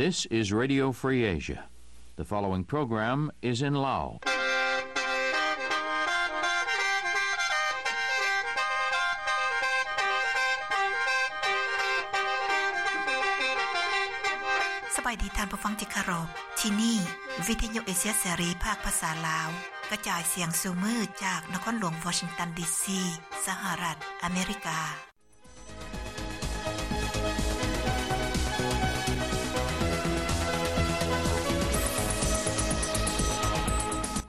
This is Radio Free Asia. The following program is in Lao. ສະບາຍດີທ່ານຜູ້ຟັງທີ່ເຄົາລົບ. ທີ່ນີ້ ວິທະຍຸເອເຊຍເສລີ ພາກພາສາລາວ ກະຈາຍສຽງສູ່ມື້ຈາກນະຄອນຫຼວງວໍຊິງຕັນ ດີຊີ ສະຫະລັດອາເມລິກາ.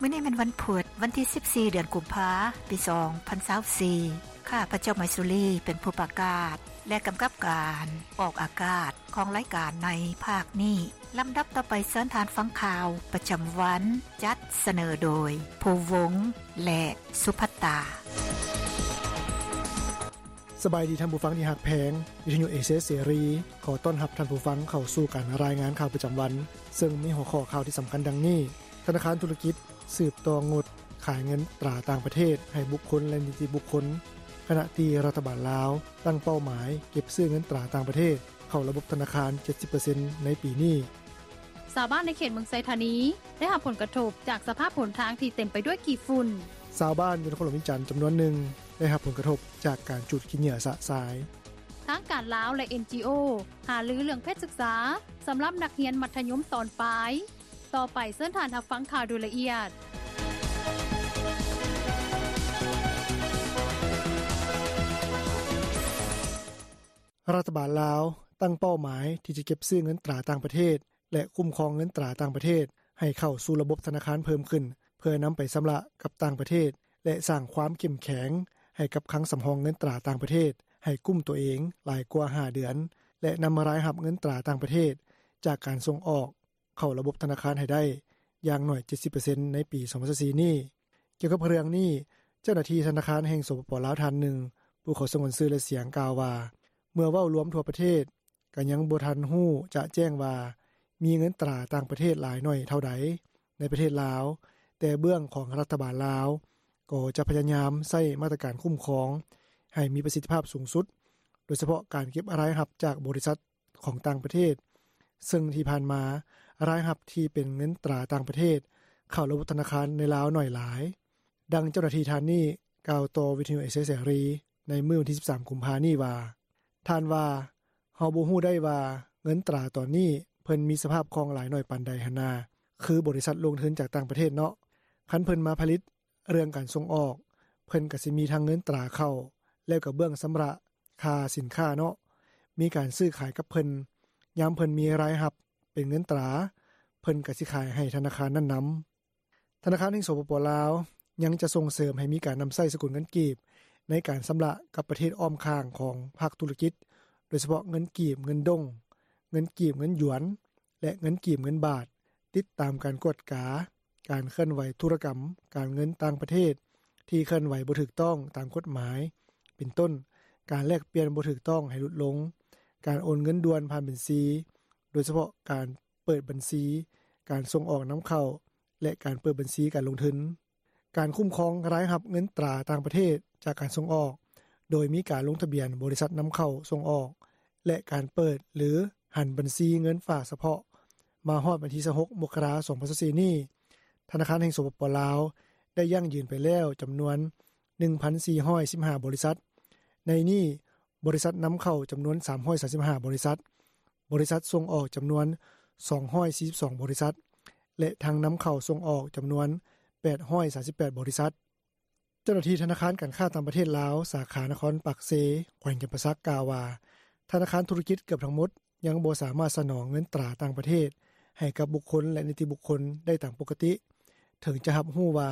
ມື້ນີ້ແມ່ນວັນພຸດ ວັນທີສິບສີ່ ເດືອນກຸມພາ ປີສອງພັນຊາວສີ່. ຂ້າພະເຈົ້າ ໄມຊູລີ ເປັນຜູ້ປະກາດ ແລະ ກຳກັບການອອກອາກາດຂອງລາຍການໃນພາກນີ້. ລຳດັບຕໍ່ໄປ ເຊີນທ່ານຟັງຂ່າວປະຈຳວັນ ຈັດສະເໜີໂດຍ ພູວົງ ແລະ ສຸພັດຕາ. ສະບາຍດີທ່ານຜູ້ຟັງທີ່ຮັກແພງ, ວິທະຍຸເອເຊຍເສລີ ຂໍຕ້ອນຮັບທ່ານຜູ້ຟັງເຂົ້າສູ່ການລາຍງານຂ່າວປະຈຳວັນ, ເຊິ່ງມີຫົວຂໍ້ຂ່າວທີ່ສຳຄັນດັ່ງນີ້: ທະນາຄານທຸລະກິດສືບຕໍ່ງົດຂາຍເງິນຕາຕ່າງປະເທດໃຫ້ບຸກຄົນ ແລະ ນິຕິບຸກຄົນ, ຂະນະທີ່ລັດຖະບານລາວຕັ້ງເປົ້າໝາຍເກັບຊື້ເງິນຕາຕ່າງປະເທດເຂົ້າລະບົບທະນາຄານ ເຈັດສິບເປີເຊັນ ໃນປີນີ້. ຊາວບ້ານໃນເຂດເມືອງໄຊທານີ ໄດ້ຮັບຜົນກະທົບຈາກສະພາບຫົນທາງທີ່ເຕັມໄປດ້ວຍຂີ້ຝຸ່ນ. ຊາວບ້ານຢູ່ນະຄອນຫຼວງວຽງຈັນຈຳນວນໜຶ່ງ ໄດ້ຮັບຜົນກະທົບຈາກການຈູດຂີ້ເຫຍື້ອຊະຊາຍ. ທາງການລາວ ແລະ ເອັນຈີໂອ ຫາລືເລື່ອງເພດສຶກສາສຳລັບນັກຮຽນມັດທະຍົມຕອນປາຍ. ຕໍ່ໄປເຊີນທ່ານຮັບຟັງຂ່າວໂດຍລະອຽດ. ລັດຖະບານລາວຕັ້ງເປົ້າໝາຍທີ່ຈະເກັບຊື້ເງິນຕາຕ່າງປະເທດ ແລະ ຄຸ້ມຄອງເງິນຕາຕ່າງປະເທດໃຫ້ເຂົ້າສູ່ລະບົບທະນາຄານເພີ່ມຂຶ້ນ ເພື່ອນຳໄປຊຳລະກັບຕ່າງປະເທດ ແລະ ສ້າງຄວາມເຂັ້ມແຂງໃຫ້ກັບຄັງສຳຮອງເງິນຕາຕ່າງປະເທດໃຫ້ກຸ້ມຕົວເອງຫຼາຍກວ່າຫ້າເດືອນ ແລະ ນຳລາຍຮັບເງິນຕາຕ່າງປະເທດຈາກການສົ່ງອອກ ເຂົ້າລະບົບທະນາຄານໃຫ້ໄດ້ຢ່າງໜ້ອຍ ເຈັດສິບເປີເຊັນ ໃນປີສອງພັນຊາວສີ່ນີ້. ກ່ຽວກັບເລື່ອງນີ້, ເຈົ້າໜ້າທີ່ທະນາຄານແຫ່ງ ສປປ ລາວ ທ່ານໜຶ່ງ ຜູ້ຂໍສະຫງວນຊື່ ແລະ ສຽງ ກ່າວວ່າ ເມື່ອເວົ້າລວມທົ່ວປະເທດ ກໍຍັງບໍ່ທັນຮູ້ຈະແຈ້ງວ່າ ມີເງິນຕາຕ່າງປະເທດຫຼາຍໜ້ອຍເທົ່າໃດໃນປະເທດລາວ, ແຕ່ເບື້ອງຂອງລັດຖະບານລາວ ກໍຈະພະຍາຍາມໃຊ້ມາດຕະການຄຸ້ມຄອງໃຫ້ມີປະສິດທິພາບສູງສຸດ, ໂດຍສະເພາະການເກັບລາຍຮັບຈາກບໍລິສັດ ຂອງຕ່າງປະເທດ, ເຊິ່ງທີ່ຜ່ານມາ ລາຍຮັບທີ່ເປັນເງິນຕາຕ່າງປະເທດເຂົ້າລະບົບທະນາຄານໃນລາວໜ້ອຍຫຼາຍ. ດັ່ງເຈົ້າໜ້າທີ່ທ່ານນີ້ກ່າວຕໍ່ວິທະຍຸເອເຊຍເສລີໃນມື້ວັນທີສິບສາມ ກຸມພານີ້ວ່າ, ທ່ານວ່າ, ເຮົາບໍ່ຮູ້ໄດ້ວ່າເງິນຕາຕອນນີ້ເພິ່ນມີສະພາບຄ່ອງຫຼາຍໜ້ອຍປານໃດຫັ້ນນາ, ຄືບໍລິສັດລົງທຶນຈາກຕ່າງປະເທດເນາະ, ຄັນເພິ່ນມາຜະລິດ ເລື່ອງການສົ່ງອອກ, ເພິ່ນກໍຊິມີທັງເງິນຕາເຂົ້າ ແລ້ວກໍເບື້ອງຊຳລະຄ່າສິນຄ້າເນາະ, ມີການຊື້ຂາຍກັບເພິ່ນ, ຍາມເພິ່ນມີລາຍຮັບເປັນເງິນຕາ, ເພິ່ນກໍຊິຂາຍໃຫ້ທະນາຄານນັ້ນນຳ. ທະນາຄານແຫ່ງ ສປປ ລາວ ຍັງຈະສົ່ງເສີມໃຫ້ມີການນຳໃຊ້ສະກຸນເງິນກີບໃນການຊຳລະກັບປະເທດອ້ອມຂ້າງຂອງພາກທຸລະກິດ, ໂດຍສະເພາະເງິນກີບເງິນດົງ, ເງິນກີບເງິນຢວນ ແລະ ເງິນກີບເງິນບາດ, ຕິດຕາມການກວດກາ ການເຄື່ອນໄຫວທຸລະກຳການເງິນຕ່າງປະເທດທີ່ເຄື່ອນໄຫວບໍ່ຖືກຕ້ອງຕາມກົດໝາຍ ເປັນຕົ້ນ ການແລກປ່ຽນບໍ່ຖືກຕ້ອງໃຫ້ຫຼຸດລົງ, ການໂອນເງິນດ່ວນຜ່ານບັນຊີ, ໂດຍສະເພາະການເປີດບັນຊີການສົ່ງອອກນຳເຂົ້າ ແລະ ການເປີດບັນຊີການລົງທຶນ. ການຄຸ້ມຄອງລາຍຮັບເງິນຕາຕ່າງປະເທດຈາກການສົ່ງອອກ ໂດຍມີການລົງທະບຽນບໍລິສັດນຳເຂົ້າສົ່ງອອກ ແລະ ການເປີດ ຫຼື ຫັນບັນຊີເງິນຝາກສະເພາະ ມາຮອດວັນທີຊາວຫົກ ມົກກະລາ ສອງພັນຊາວສີ່ນີ້, ທະນາຄານແຫ່ງ ສປປ ລາວ ໄດ້ຢັ້ງຢືນໄປແລ້ວຈຳນວນ ໜຶ່ງພັນສີ່ຮ້ອຍສິບຫ້າ ບໍລິສັດ, ໃນນີ້ ບໍລິສັດນຳເຂົ້າຈຳນວນ ສາມຮ້ອຍສາມສິບຫ້າ ບໍລິສັດ, ບໍລິສັດສົ່ງອອກຈຳນວນ ສອງຮ້ອຍສີ່ສິບສອງ ບໍລິສັດ ແລະ ທັງນຳເຂົ້າສົ່ງອອກຈຳນວນ ແປດຮ້ອຍສາມສິບແປດ ບໍລິສັດ. ເຈົ້າໜ້າທີ່ທະນາຄານການຄ້າຕ່າງປະເທດລາວ ສາຂານະຄອນປາກເຊ ແຂວງຈຳປາສັກ ກ່າວວ່າ ທະນາຄານທຸລະກິດເກືອບທັງໝົດຍັງບໍ່ສາມາດສະໜອງເງິນຕາຕ່າງປະເທດໃຫ້ກັບບຸກຄົນ ແລະ ນິຕິບຸກຄົນໄດ້ຕາມປົກກະຕິ, ເຖິງຈະຮັບຮູ້ວ່າ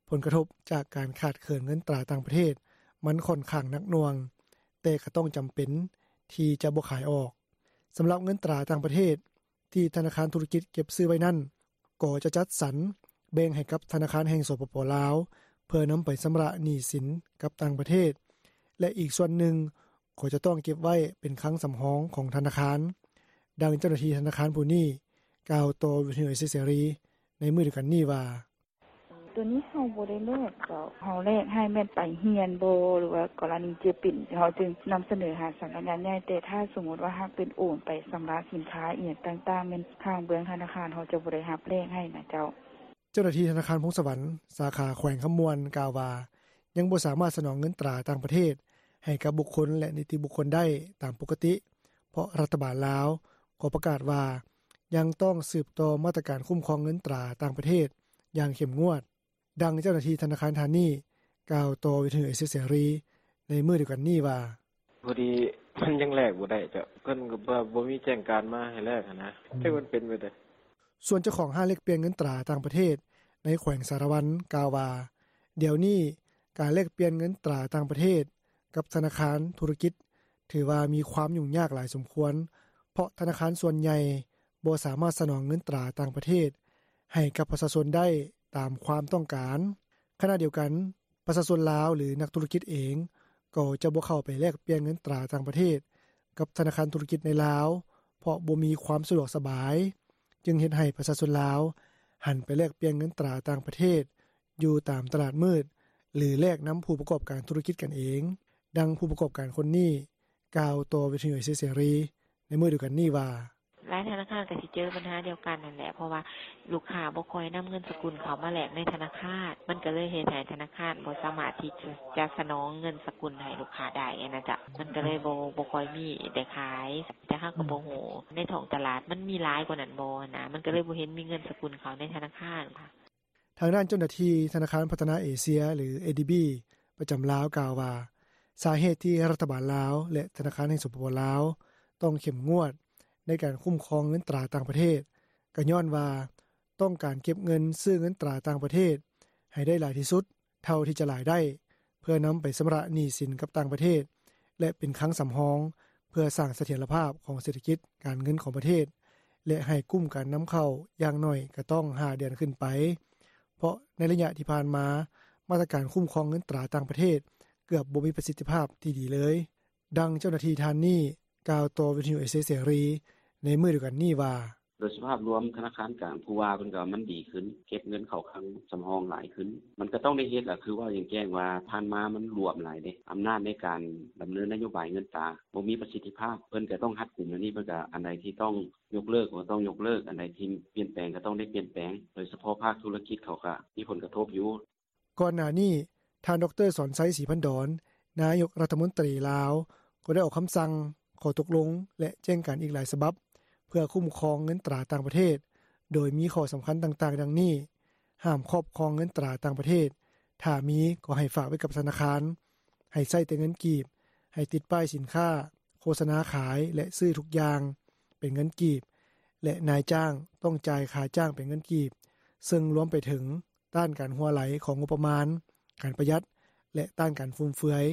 ຜົນກະທົບຈາກການຂາດເຂີນເງິນຕາຕ່າງປະເທດມັນຂ້ອນຂ້າງໜັກໜ່ວງ, ແຕ່ກໍຕ້ອງຈຳເປັນທີ່ຈະບໍ່ຂາຍອອກ. ສຳລັບເງິນຕາຕ່າງປະເທດທີ່ທະນາຄານທຸລະກິດເກັບຊື້ໄວ້ນັ້ນ ກໍຈະຈັດສັນແບ່ງໃຫ້ກັບທະນາຄານແຫ່ງ ສປປ ລາວ ເພື່ອນຳໄປຊຳລະໜີ້ສິນກັບຕ່າງປະເທດ ແລະ ອີກສ່ວນໜຶ່ງກໍຈະຕ້ອງເກັບໄວ້ເປັນຄັງສຳຮອງຂອງທະນາຄານ. ດັ່ງເຈົ້າໜ້າທີ່ທະນາຄານຜູ້ນີ້ກ່າວຕໍ່ວິທະຍຸເອເຊຍເສລີໃນມື້ດຽວກັນນີ້ວ່າ: ໂຕນີ້ເຮົາບໍ່ໄດ້ແລກເຈົ້າ ເຮົາແລກໃຫ້ແມ່ນໄປຮຽນບໍ່ ຫຼືວ່າກໍລະນີເຈັບເປັນ ເຮົາຈຶ່ງນຳສະເໜີຫາສຳນັກງານໃຫຍ່ ແຕ່ຖ້າສົມມຸດວ່າຫາກເປັນໂອນໄປຊຳລະສິນຄ້າອີ່ຫຍັງຕ່າງໆ ແມ່ນທາງເບື້ອງທະນາຄານເຮົາຈະບໍ່ໄດ້ຮັບແລກໃຫ້ນະເຈົ້າ.” ເຈົ້າໜ້າທີ່ທະນາຄານພົງສະຫວັນ ສາຂາແຂວງຄຳມ່ວນ ກ່າວວ່າ ຍັງບໍ່ສາມາດສະໜອງເງິນຕາຕ່າງປະເທດໃຫ້ກັບບຸກຄົນ ແລະ ນິຕິບຸກຄົນໄດ້ຕາມປົກກະຕິ ເພາະລັດຖະບານລາວກໍປະກາດວ່າ ຍັງຕ້ອງສືບຕໍ່ມາດຕະການຄຸ້ມຄອງເງິນຕາຕ່າງປະເທດຢ່າງເຂັ້ມງວດ. ດັ່ງເຈົ້າໜ້າທີ່ທະນາຄານທ່ານນີ້ ກ່າວຕໍ່ວິທະຍຸເອເຊຍເສລີໃນມື້ດຽວກັນນີ້ວ່າ: “ພໍດີມັນຍັງແລກບໍ່ໄດ້ເຈົ້າ ເພິ່ນກໍບໍ່ມີແຈ້ງການມາໃຫ້ແລກຫັ້ນນະ ຈັກມັນເປັນແບບໃດ.” ສ່ວນເຈົ້າຂອງຮ້ານແລກປ່ຽນເງິນຕາຕ່າງປະເທດ ໃນແຂວງສາລະວັນ ກ່າວວ່າ ດຽວນີ້ການແລກປ່ຽນເງິນຕາຕ່າງປະເທດກັບທະນາຄານທຸລະກິດ ຖືວ່າມີຄວາມຫຍຸ້ງຍາກຫຼາຍສົມຄວນ ເພາະທະນາຄານສ່ວນໃຫຍ່ບໍ່ສາມາດສະໜອງເງິນຕາຕ່າງປະເທດໃຫ້ກັບປະຊາຊົນໄດ້ຕາມຄວາມຕ້ອງການ. ຂະນະດຽວກັນ ປະຊາຊົນລາວ ຫຼື ນັກທຸລະກິດເອງ ກໍຈະບໍ່ເຂົ້າໄປແລກປ່ຽນເງິນຕາຕ່າງປະເທດກັບທະນາຄານທຸລະກິດໃນລາວ ເພາະບໍ່ມີຄວາມສະດວກສະບາຍ ຈຶ່ງເຮັດໃຫ້ປະຊາຊົນລາວຫັນໄປແລກປ່ຽນເງິນຕາຕ່າງປະເທດຢູ່ຕາມຕະຫຼາດມືດ ຫຼື ແລກນຳຜູ້ປະກອບການທຸລະກິດກັນເອງ. ດັ່ງຜູ້ປະກອບການຄົນນີ້ ກ່າວຕໍ່ວິທະຍຸເອເຊຍເສລີໃນມື້ດຽວກັນນີ້ວ່າ: “ຫຼາຍທະນາຄານກໍຊິເຈີບັນຫາດຽວກັນຫັ້ນແຫຼະ ເພາະວ່າລູກຄ້າບໍ່ຄ່ອຍນຳເງິນສະກຸນເຂົ້າມາແລກໃນທະນາຄານ ມັນກໍເລີຍເຮັດໃຫ້ທະນາຄານບໍ່ສາມາດທີ່ຈະສະໜອງເງິນສະກຸນໃຫ້ລູກຄ້າໄດ້ຫັ້ນນະເຈົ້າ ມັນກໍເລີຍບໍ່ ບໍ່ຄ່ອຍມີໄດ້ຂາຍ ແຕ່ເຮົາກໍບໍ່ຮູ້ໃນທ້ອງຕະຫຼາດມັນມີຫຼາຍກວ່ານັ້ນບໍ່ຫັ້ນນະ ມັນກໍເລີຍບໍ່ເຫັນມີເງິນສະກຸນເຂົ້າໃນທະນາຄານ.” ທາງດ້ານເຈົ້າໜ້າທີ່ທະນາຄານພັດທະນາເອເຊຍ ຫຼື ເອດີບີ ປະຈຳລາວ ກ່າວວ່າ ສາເຫດທີ່ລັດຖະບານລາວ ແລະ ທະນາຄານແຫ່ງ ສປປ ລາວ ຕ້ອງເຂັ້ມງວດໃນການຄຸ້ມຄອງເງິນຕາຕ່າງປະເທດ ກໍຍ້ອນວ່າຕ້ອງການເກັບເງິນຊື້ເງິນຕາຕ່າງປະເທດໃຫ້ໄດ້ຫຼາຍທີ່ສຸດເທົ່າທີ່ຈະຫຼາຍໄດ້ ເພື່ອນຳໄປຊຳລະໜີ້ສິນກັບຕ່າງປະເທດ ແລະ ເປັນຄັງສຳຮອງ ເພື່ອສ້າງສະຖຽນລະພາບຂອງເສດຖະກິດການເງິນຂອງປະເທດ ແລະ ໃຫ້ກຸ້ມການນຳເຂົ້າຢ່າງໜ້ອຍກໍຕ້ອງຫ້າເດືອນຂຶ້ນໄປ ເພາະໃນໄລຍະທີ່ຜ່ານມາ ມາດຕະການຄຸ້ມຄອງເງິນຕາຕ່າງປະເທດເກືອບບໍ່ມີປະສິດທິພາບທີ່ດີເລີຍ. ດັ່ງເຈົ້າໜ້າທີ່ທ່ານນີ້ ກ່າວຕໍ່ວິທະຍຸເອເຊຍເສລີໃນມື້ດຽວກັນນີ້ວ່າ: “ໂດຍສະພາບລວມທະນາຄານກາງ ຜູ້ວ່າເພິ່ນກໍວ່າມັນດີຂຶ້ນ ເກັບເງິນເຂົ້າຄັງສຳຮອງຫຼາຍຂຶ້ນ ມັນກໍຕ້ອງໄດ້ເຮັດແຫຼະ ຄືເວົ້າຢ່າງແຈ້ງວ່າຜ່ານມາມັນຫຼວມຫຼາຍເດ້ ອຳນາດໃນການດຳເນີນນະໂຍບາຍເງິນຕາບໍ່ມີປະສິດທິພາບ ເພິ່ນກໍຕ້ອງຮັດກຸມແນວນີ້ ເພິ່ນກໍອັນໃດທີ່ຕ້ອງຍົກເລີກກໍຕ້ອງຍົກເລີກ ອັນໃດທີ່ປ່ຽນແປງກໍຕ້ອງໄດ້ປ່ຽນແປງ ໂດຍສະເພາະພາກທຸລະກິດເຂົາກໍມີຜົນກະທົບຢູ່.” ກ່ອນໜ້ານີ້ ທ່ານ ດຣ. ສອນໄຊ ສີພັນດອນ ນາຍົກລັດຖະມົນຕີລາວ ກໍໄດ້ອອກຄຳສັ່ງ, ຂໍ້ຕົກລົງ ແລະ ແຈ້ງການອີກຫຼາຍສະບັບ ເພື່ອຄຸ້ມຄອງເງິນຕາຕ່າງປະເທດ ໂດຍມີຂໍ້ສຳຄັນຕ່າງໆ ດັ່ງນີ້: ຫ້າມຄອບຄອງເງິນຕາຕ່າງປະເທດ, ຖ້າມີກໍໃຫ້ຝາກໄວ້ກັບທະນາຄານ, ໃຫ້ໃຊ້ແຕ່ເງິນກີບ, ໃຫ້ຕິດປ້າຍສິນຄ້າ, ໂຄສະນາຂາຍ ແລະ ຊື້ທຸກຢ່າງເປັນເງິນກີບ ແລະ ນາຍຈ້າງຕ້ອງຈ່າຍຄ່າຈ້າງເປັນເງິນກີບ, ເຊິ່ງລວມໄປເຖິງ ຕ້ານການຮົ່ວໄຫຼຂອງງົບປະມານ, ການປະຢັດ ແລະ ຕ້ານການຟຸມເຟືອຍ.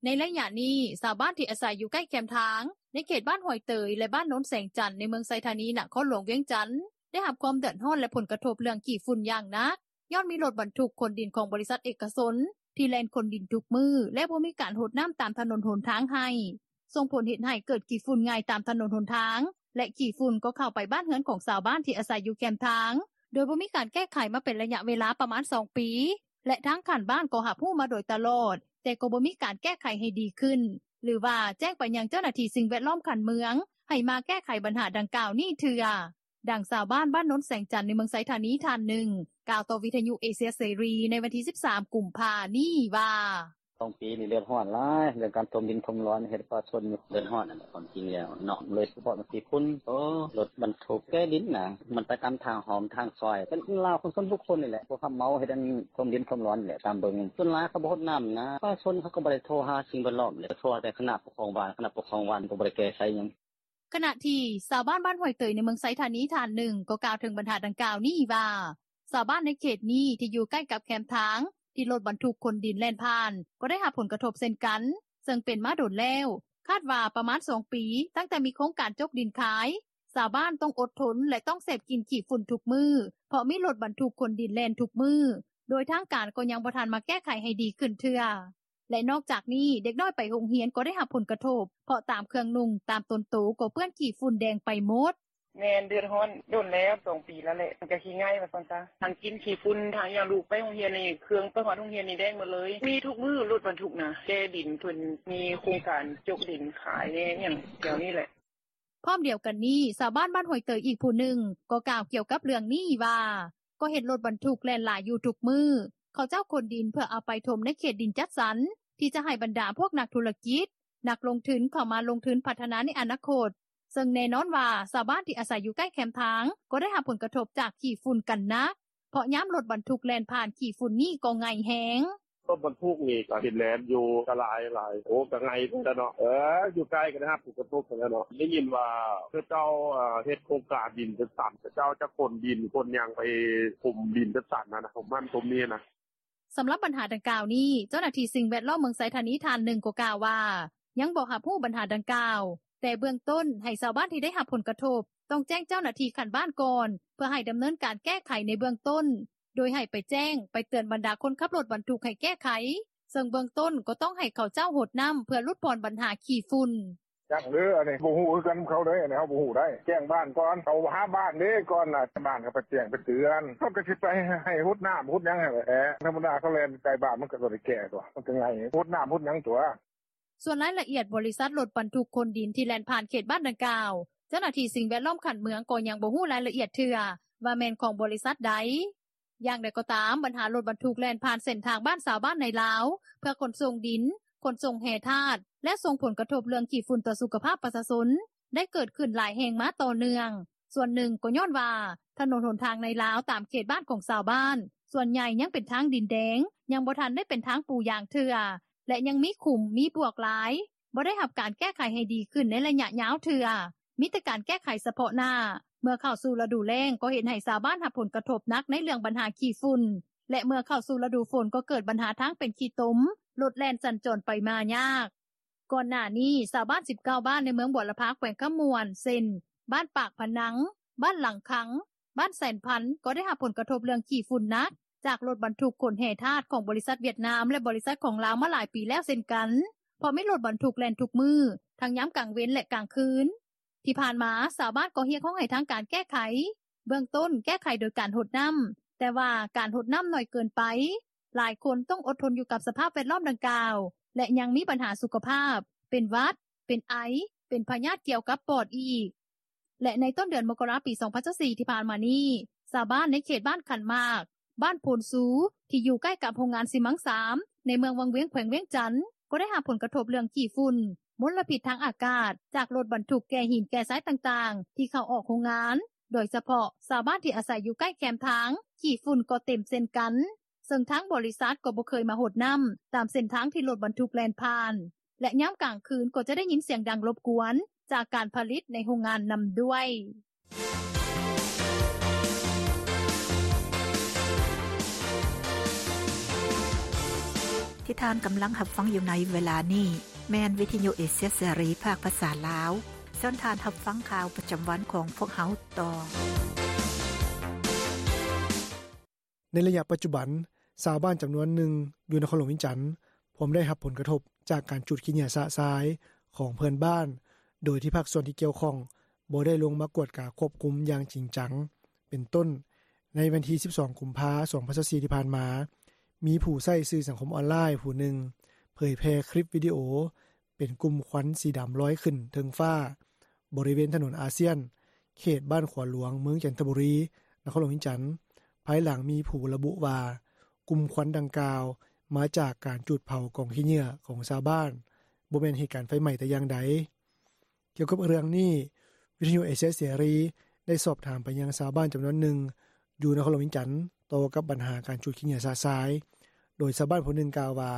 ໃນໄລຍະນີ້ ຊາວບ້ານທີ່ອາໄສຢູ່ໃກ້ແຄມທາງ ໃນເຂດບ້ານຫ້ວຍເຕີຍ ແລະ ບ້ານໂນນແສງຈັນ ໃນເມືອງໄຊທານີ ນະຄອນຫຼວງວຽງຈັນ ໄດ້ຮັບຄວາມເດືອດຮ້ອນ ແລະ ຜົນກະທົບເລື່ອງຂີ້ຝຸ່ນຢ່າງໜັກ ຍ້ອນມີລົດບັນທຸກຂົນດິນຂອງບໍລິສັດເອກະຊົນ ທີ່ແລ່ນຂົນດິນທຸກມື້ ແລະ ບໍ່ມີການຫົດນ້ຳຕາມຖະໜົນຫົນທາງໃຫ້ ສົ່ງຜົນເຮັດໃຫ້ເກີດຂີ້ຝຸ່ນງ່າຍຕາມຖະໜົນຫົນທາງ ແລະ ຂີ້ຝຸ່ນກໍເຂົ້າໄປບ້ານເຮືອນຂອງຊາວບ້ານທີ່ອາໄສຢູ່ແຄມທາງ ໂດຍບໍ່ມີການແກ້ໄຂມາເປັນໄລຍະເວລາປະມານສອງປີ ແລະ ທາງຂັ້ນບ້ານກໍຮັບຮູ້ມາໂດຍຕະຫຼອດ ແຕ່ກໍບໍ່ມີການແກ້ໄຂໃຫ້ດີຂຶ້ນ ຫຼືວ່າແຈ້ງໄປຍັງເຈົ້າໜ້າທີ່ສິ່ງແວດລ້ອມຂັ້ນເມືອງ ໃຫ້ມາແກ້ໄຂບັນຫາດັ່ງກ່າວນີ້ເທື່ອ. ດັ່ງຊາວບ້ານ ບ້ານໂນນແສງຈັນ ໃນເມືອງໄຊທານີ ທ່ານໜຶ່ງ ກ່າວຕໍ່ວິທະຍຸເອເຊຍເສລີ ໃນວັນທີສິບສາມ ກຸມພາ ນີ້ວ່າ: “ສອງປີນີ້ເດືອດຮ້ອນຫຼາຍ ເລື່ອງການຖົມດິນຖົມດອນ ເຮັດປະຊາຊົນເດືອດຮ້ອນຫັ້ນແຫຼະ ຄວາມຈິງແລ້ວເນາະ ໂດຍສະເພາະມັນຂີ້ຝຸ່ນ ໂອ້ ລົດບັນທຸກແກ່ດິນນະ ມັນໄປຕາມທາງຫ້ອມທາງຊອຍ ເປັນຂອງລາວ ຂອງສ່ວນບຸກຄົນນີ້ແຫຼະ ຜູ້ຮັບເໝົາເຮັດອັນຖົມດິນຖົມດອນນີ້ແຫຼະ ຕາມເບິ່ງ ສ່ວນຫຼາຍເຂົາບໍ່ຫົດນ້ຳນະ ປະຊາຊົນເຂົາກໍບໍ່ໄດ້ໂທຫາສິ່ງແວດລ້ອມເດ ໂທຫາແຕ່ຄະນະປົກຄອງບ້ານ ຄະນະປົກຄອງບ້ານກໍບໍ່ໄດ້ແກ້ໄຂຫຍັງ.” ຂະນະທີ່ຊາວບ້ານ ບ້ານຫ້ວຍເຕີຍ ໃນເມືອງໄຊທານີ ທ່ານໜຶ່ງ ກໍກ່າວເຖິງບັນຫາດັ່ງກ່າວນີ້ວ່າ ຊາວບ້ານໃນເຂດນີ້ທີ່ຢູ່ໃກ້ກັບແຄມທາງ ທີ່ລົດບັນທຸກຂົນດິນແລ່ນຜ່ານ ກໍໄດ້ຮັບຜົນກະທົບເຊັ່ນກັນ ເຊິ່ງເປັນມາດົນແລ້ວ ຄາດວ່າປະມານສອງປີ ຕັ້ງແຕ່ມີໂຄງການຈົກດິນຂາຍ ຊາວບ້ານຕ້ອງອົດທົນ ແລະ ຕ້ອງເສບກິນຂີ້ຝຸ່ນທຸກມື້ ເພາະມີລົດບັນທຸກຂົນດິນແລ່ນທຸກມື້ ໂດຍທາງການກໍຍັງບໍ່ທັນມາແກ້ໄຂໃຫ້ດີຂຶ້ນເທື່ອ. ແລະ ນອກຈາກນີ້ ເດັກນ້ອຍໄປໂຮງຮຽນກໍໄດ້ຮັບຜົນກະທົບ ເພາະຕາມເຄື່ອງນຸ່ງ ຕາມຕົນໂຕກໍເປື້ອນຂີ້ຝຸ່ນແດງໄປໝົດ. ແມ່ນ ເດືອດຮ້ອນດົນແລ້ວ ສອງປີແລ້ວແຫຼະ ມັນກໍຂີ້ໄງ່ວ່າຊັ້ນສະ ທັງກິນຂີ້ຝຸ່ນ ທັງຫຍັງ ລູກໄປໂຮງຮຽນນີ້ ເຄື່ອງໄປຮອດໂຮງຮຽນນີ້ແດງໝົດເລີຍ ມີທຸກມື້ລົດບັນທຸກນະ ແກ່ດິນ ເພິ່ນມີໂຄງການຈົກດິນຂາຍແດ່ຫຍັງ ແຖວນີ້ແຫຼະ.” ພ້ອມດຽວກັນນີ້ ຊາວບ້ານບ້ານຫ້ວຍເຕີຍອີກຜູ້ໜຶ່ງ ກໍກ່າວກ່ຽວກັບເລື່ອງນີ້ວ່າ ກໍເຫັນລົດບັນທຸກແລ່ນຫຼາຍຢູ່ທຸກມື້ ເຂົາເຈົ້າຂົນດິນເພື່ອເອົາໄປຖົມໃນເຂດດິນຈັດສັນ ທີ່ຈະໃຫ້ບັນດາພວກນັກທຸລະກິດ ນັກລົງທຶນເຂົ້າມາລົງທຶນພັດທະນາໃນອະນາຄົດ ເຊິ່ງແນ່ນອນວ່າ ຊາວບ້ານທີ່ອາໄສຢູ່ໃກ້ແຄມທາງ ກໍໄດ້ຮັບຜົນກະທົບຈາກຂີ້ຝຸ່ນກັນໜັກ ເພາະຍາມລົດບັນທຸກແລ່ນຜ່ານ ຂີ້ຝຸ່ນນີ້ກໍໄງ່ແຮງ. “ລົດບັນທຸກນີ້ກໍເຫັນແລ່ນຢູ່ ກໍຫຼາຍໆ ໂອ້ ກໍໄງ່ພຸ້ນແຫຼະເນາະ ເອີ ຢູ່ໃກ້ກໍໄດ້ຮັບຜົນກະທົບຫັ້ນແຫຼະເນາະ ໄດ້ຍິນວ່າເຂົາເຈົ້າເຮັດໂຄງການດິນຈັດສັນ ເຂົາເຈົ້າຈະຂົນດິນຂົນຫຍັງໄປຖົມດິນຈັດສັນຫັ້ນນະ ຖົມຫັ້ນຖົມນີ້ນະ.” ສຳລັບບັນຫາດັ່ງກ່າວນີ້ ເຈົ້າໜ້າທີ່ສິ່ງແວດລ້ອມເມືອງໄຊທານີທ່ານໜຶ່ງກໍກ່າວວ່າ ຍັງບໍ່ຮັບຮູ້ບັນຫາດັ່ງກ່າວ ແຕ່ເບື້ອງຕົ້ນໃຫ້ຊາວບ້ານທີ່ໄດ້ຮັບຜົນກະທົບ ຕ້ອງແຈ້ງເຈົ້າໜ້າທີ່ຂັ້ນບ້ານກ່ອນ ເພື່ອໃຫ້ດຳເນີນການແກ້ໄຂໃນເບື້ອງຕົ້ນ ໂດຍໃຫ້ໄປແຈ້ງ ໄປເຕືອນບັນດາຄົນຂັບລົດບັນທຸກໃຫ້ແກ້ໄຂ ເຊິ່ງເບື້ອງຕົ້ນກໍຕ້ອງໃຫ້ເຂົາເຈົ້າຫົດນ້ຳ ເພື່ອຫຼຸດຜ່ອນບັນຫາຂີ້ຝຸ່ນ. “ຈັກເດີ ອັນນີ້ບໍ່ຮູ້ຄືກັນນຳເຂົາເດ້ ອັນນີ້ເຮົາບໍ່ຮູ້ໄດ໋ ແຈ້ງບ້ານກ່ອນ ເຂົາຫາບ້ານເດ້ກ່ອນນະ ບ້ານກໍໄປແຈ້ງໄປເຕືອນ ເຂົາກໍຊິໄປໃຫ້ຫົດນ້ຳຫົດຫຍັງຫັ້ນແຫຼະ ທຳມະດາເຂົາແລ່ນໃກ້ບ້ານ ມັນກໍບໍ່ໄດ້ແກ້ຕົວະ ມັນກໍໄງ່ຫົດນ້ຳຫົດຫຍັງຕົວະ.” ສ່ວນລາຍລະອຽດບໍລິສັດລົດບັນທຸກຂົນດິນທີ່ແລ່ນຜ່ານເຂດບ້ານດັ່ງກ່າວ ເຈົ້າໜ້າທີ່ສິ່ງແວດລ້ອມຂັ້ນເມືອງກໍຍັງບໍ່ຮູ້ລາຍລະອຽດເທື່ອ ວ່າແມ່ນຂອງບໍລິສັດໃດ. ຢ່າງໃດກໍຕາມ ບັນຫາລົດບັນທຸກແລ່ນຜ່ານເສັ້ນທາງບ້ານຊາວບ້ານໃນລາວ ເພື່ອຂົນສົ່ງດິນ, ຂົນສົ່ງແຮ່ທາດ ແລະ ສົ່ງຜົນກະທົບເລື່ອງຂີ້ຝຸ່ນຕໍ່ສຸຂະພາບປະຊາຊົນ ໄດ້ເກີດຂຶ້ນຫຼາຍແຫ່ງມາຕໍ່ເນື່ອງ. ສ່ວນໜຶ່ງກໍຍ້ອນວ່າ ຖະໜົນຫົນທາງໃນລາວຕາມເຂດບ້ານຂອງຊາວບ້ານ ສ່ວນໃຫຍ່ຍັງເປັນທາງດິນແດງ ຍັງບໍ່ທັນໄດ້ເປັນທາງປູຢາງເທື່ອ ແລະ ຍັງມີຂຸມ ມີບວກຫຼາຍ ບໍ່ໄດ້ຮັບການແກ້ໄຂໃຫ້ດີຂຶ້ນໃນໄລຍະຍາວເທື່ອ ມີແຕ່ການແກ້ໄຂສະເພາະໜ້າ ເມື່ອເຂົ້າສູ່ລະດູແລ້ງກໍເຮັດໃຫ້ຊາວບ້ານຮັບຜົນກະທົບໜັກໃນເລື່ອງບັນຫາຂີ້ຝຸ່ນ ແລະ ເມື່ອເຂົ້າສູ່ລະດູຝົນກໍເກີດບັນຫາທາງເປັນຂີ້ຕົມ ລົດແລ່ນສັນຈອນໄປມາຍາກ. ກ່ອນໜ້ານີ້ ຊາວບ້ານສິບເກົ້າບ້ານໃນເມືອງບົວລະພາ ແຂວງຄຳມ່ວນ ເຊັ່ນ ບ້ານປາກພະນັງ, ບ້ານຫຼັງຄັງ, ບ້ານແສນພັນ ກໍໄດ້ຮັບຜົນກະທົບເລື່ອງຂີ້ຝຸ່ນໜັກ ຈາກລົດບັນທຸກຂົນແຮ່ທາດຂອງບໍລິສັດຫວຽດນາມ ແລະ ບໍລິສັດຂອງລາວມາຫຼາຍປີແລ້ວເຊັ່ນກັນ ເພາະມີລົດບັນທຸກແລ່ນທຸກມື້ ທັງຍາມກາງເວັນ ແລະ ກາງຄືນ. ທີ່ຜ່ານມາ ຊາວບ້ານກໍຮຽກຮ້ອງໃຫ້ທາງການແກ້ໄຂ ເບື້ອງຕົ້ນແກ້ໄຂໂດຍການຫົດນ້ຳ ແຕ່ວ່າການຫົດນ້ຳໜ້ອຍເກີນໄປ ຫຼາຍຄົນຕ້ອງອົດທົນຢູ່ກັບສະພາບແວດລ້ອມດັ່ງກ່າວ ແລະ ຍັງມີບັນຫາສຸຂະພາບ ເປັນຫວັດ, ເປັນໄອ, ເປັນພະຍາດກ່ຽວກັບປອດອີກ. ແລະ ໃນຕົ້ນເດືອນມົກກະລາ ປີສອງພັນຊາວສີ່ ທີ່ຜ່ານມານີ້ ຊາວບ້ານໃນເຂດບ້ານຂັນໝາກ, ບ້ານໂພນຊູ ທີ່ຢູ່ໃກ້ກັບໂຮງງານຊີມັງສາມ ໃນເມືອງວັງວຽງ ແຂວງວຽງຈັນ ກໍໄດ້ຮັບຜົນກະທົບເລື່ອງຂີ້ຝຸ່ນ, ມົນລະພິດທາງອາກາດ ຈາກລົດບັນທຸກແກ່ຫີນແກ່ຊາຍຕ່າງໆ ທີ່ເຂົ້າອອກໂຮງງານ. ໂດຍສະເພາະຊາວບ້ານທີ່ອາໄສຢູ່ໃກ້ແຄມທາງ ຂີ້ຝຸ່ນກໍເຕັມເຊັ່ນກັນ, ເຊິ່ງທາງບໍລິສັດກໍບໍ່ເຄີຍມາຫົດນ້ຳຕາມເສັ້ນທາງທີ່ລົດບັນທຸກແລ່ນຜ່ານ ແລະ ຍາມກາງຄືນກໍຈະໄດ້ຍິນສຽງດັງລົບກວນຈາກການຜະລິດໃນໂຮງງານນຳດ້ວຍ. ທີ່ທ່ານກຳລັງຮັບຟັງຢູ່ໃນເວລານີ້ ແມ່ນວິທະຍຸເອເຊຍເສລີ ພາກພາສາລາວ. ເຊີນທ່ານຮັບຟັງຂ່າວປະຈຳວັນຂອງພວກເຮົາຕໍ່. ໃນໄລຍະປັດຈຸບັນ, ຊາວບ້ານຈຳນວນໜຶ່ງຢູ່ນະຄອນຫຼວງວຽງຈັນ ພວມໄດ້ຮັບຜົນກະທົບຈາກການຈູດຂີ້ເຫຍື້ອຊະຊາຍຂອງເພື່ອນບ້ານ, ໂດຍທີ່ພາກສ່ວນທີ່ກ່ຽວຂ້ອງບໍ່ໄດ້ລົງມາກວດກາຄວບຄຸມຢ່າງຈິງຈັງ. ເປັນຕົ້ນ, ໃນວັນທີສິບສອງ ກຸມພາ ສອງພັນຊາວສີ່ ທີ່ຜ່ານມາ, ມີຜູ້ໃຊ້ສື່ສັງຄົມອອນລາຍຜູ້ໜຶ່ງ ເຜີຍແຜ່ຄລິບວິດີໂອ ເປັນກຸ່ມຄວັນສີດຳລອຍຂຶ້ນເທິງຟ້າ ບໍລິເວນຖະໜົນອາຊຽນ ເຂດບ້ານຂວາຫຼວງ ເມືອງຈັນທະບູລີ ນະຄອນຫຼວງວຽງຈັນ, ພາຍຫຼັງມີຜູ້ລະບຸວ່າ ກຸ່ມຄວັນດັ່ງກ່າວມາຈາກການຈູດເຜົາກອງຂີ້ເຫຍື້ອຂອງຊາວບ້ານ, ບໍ່ແມ່ນເຫດການໄຟໄໝ້ແຕ່ຢ່າງໃດ. ກ່ຽວກັບເລື່ອງນີ້, ວິທະຍຸເອເຊຍເສລີໄດ້ສອບຖາມໄປຍັງຊາວບ້ານຈຳນວນໜຶ່ງ ຢູ່ນະຄອນຫຼວງວຽງຈັນ ຕໍ່ກັບບັນຫາການຈູດຂີ້ເຫຍື້ອຊະຊາຍ, ໂດຍຊາວບ້ານຜູ້ໜຶ່ງກ່າວວ່າ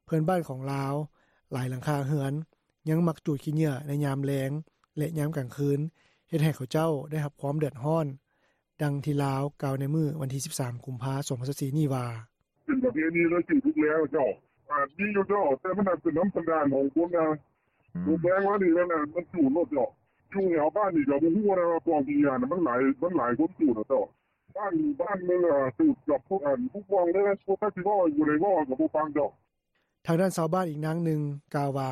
ເພື່ອນບ້ານຂອງລາວຫຼາຍຫຼັງຄາເຮືອນ ຍັງມັກຈູດຂີ້ເຫຍື້ອໃນຍາມແລງ ແລະ ຍາມກາງຄືນ, ເຮັດໃຫ້ເຂົາເຈົ້າໄດ້ຮັບຄວາມເດືອດຮ້ອນ. ດັ່ງທີ່ລາວກ່າວໃນມື້ວັນທີສິບສາມ ກຸມພາ ສອງພັນຊາວສີ່ ນີ້ວ່າ: ເປັນປະເພນີແລ້ວ ຈູດທຸກແລງເຈົ້າ ອາດມີຢູ່ເຈົ້າ ແຕ່ມັນອາດເປັນນຳສັນດານຂອງຄົນນະ ອືມ ທຸກແລງມານີ້ແລ້ວນະ ມັນຈູດໂລດເຈົ້າ. ຢູ່ແຖວບ້ານນີ້ກໍບໍ່ຮູ້ນະວ່າກອງຂີ້ເຫຍື້ອນະ ມັນຫຼາຍ ມັນຫຼາຍຄົນຈູດນະເຈົ້າ. ບ້ານ ບ້ານໜຶ່ງ ອາ ຈູດກັບພວກ ອັນ ຜູ້ກອງເດ້ ພວກ ຈັກຊິເວົ້າ ບໍ່ໄດ້ເວົ້າ ກໍບໍ່ຟັງເຈົ້າ. ທາງດ້ານຊາວບ້ານອີກນາງໜຶ່ງກ່າວວ່າ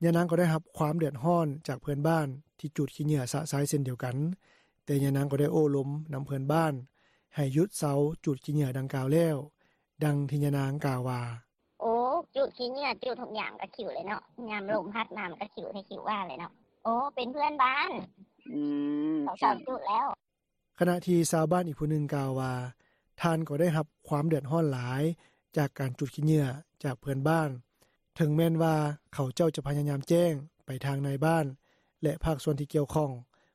ຍານາງກໍໄດ້ຮັບຄວາມເດືອດຮ້ອນຈາກເພື່ອນບ້ານທີ່ຈູດຂີ້ເຫຍື້ອຊະຊາຍເຊັ່ນດຽວກັນ, ຕ່ຍານາງກໍໄດ້ໂອ້ລົມນຳເພື່ອນບ້ານ ໃຫ້ຢຸດເຊົາຈູດຂີ້ເຫຍື້ອດັ່ງກ່າວແລ້ວ. ດັ່ງທີ່ຍານາງກ່າວວ່າ: “ໂອ້ ຈູດຂີ້ເຫຍື້ອ ຈູດທຸກຍາມກໍຂິວແຫຼະເນາະ ຍາມລົມພັດມາມັນກໍຂິວແທ້ຂິວວ່າແຫຼະເນາະ ໂອ້ ເປັນເພື່ອນບ້ານ ອືມ ເຂົາເຊົາຈູດແລ້ວ.” ຂະນະທີ່ຊາວບ້ານອີກຜູ້ໜຶ່ງກ່າວວ່າ ທ່ານກໍໄດ້ຮັບຄວາມເດືອດຮ້ອນຫຼາຍ ຈາກການຈູດຂີ້ເຫຍື້ອຈາກເພື່ອນບ້ານ ເຖິງແມ່ນວ່າເຂົາເຈົ້າຈະພະຍາຍາມແຈ້ງໄປທາງນາຍບ້ານ ແລະ ພາກສ່ວນທີ່ກ່ຽວຂ້ອງ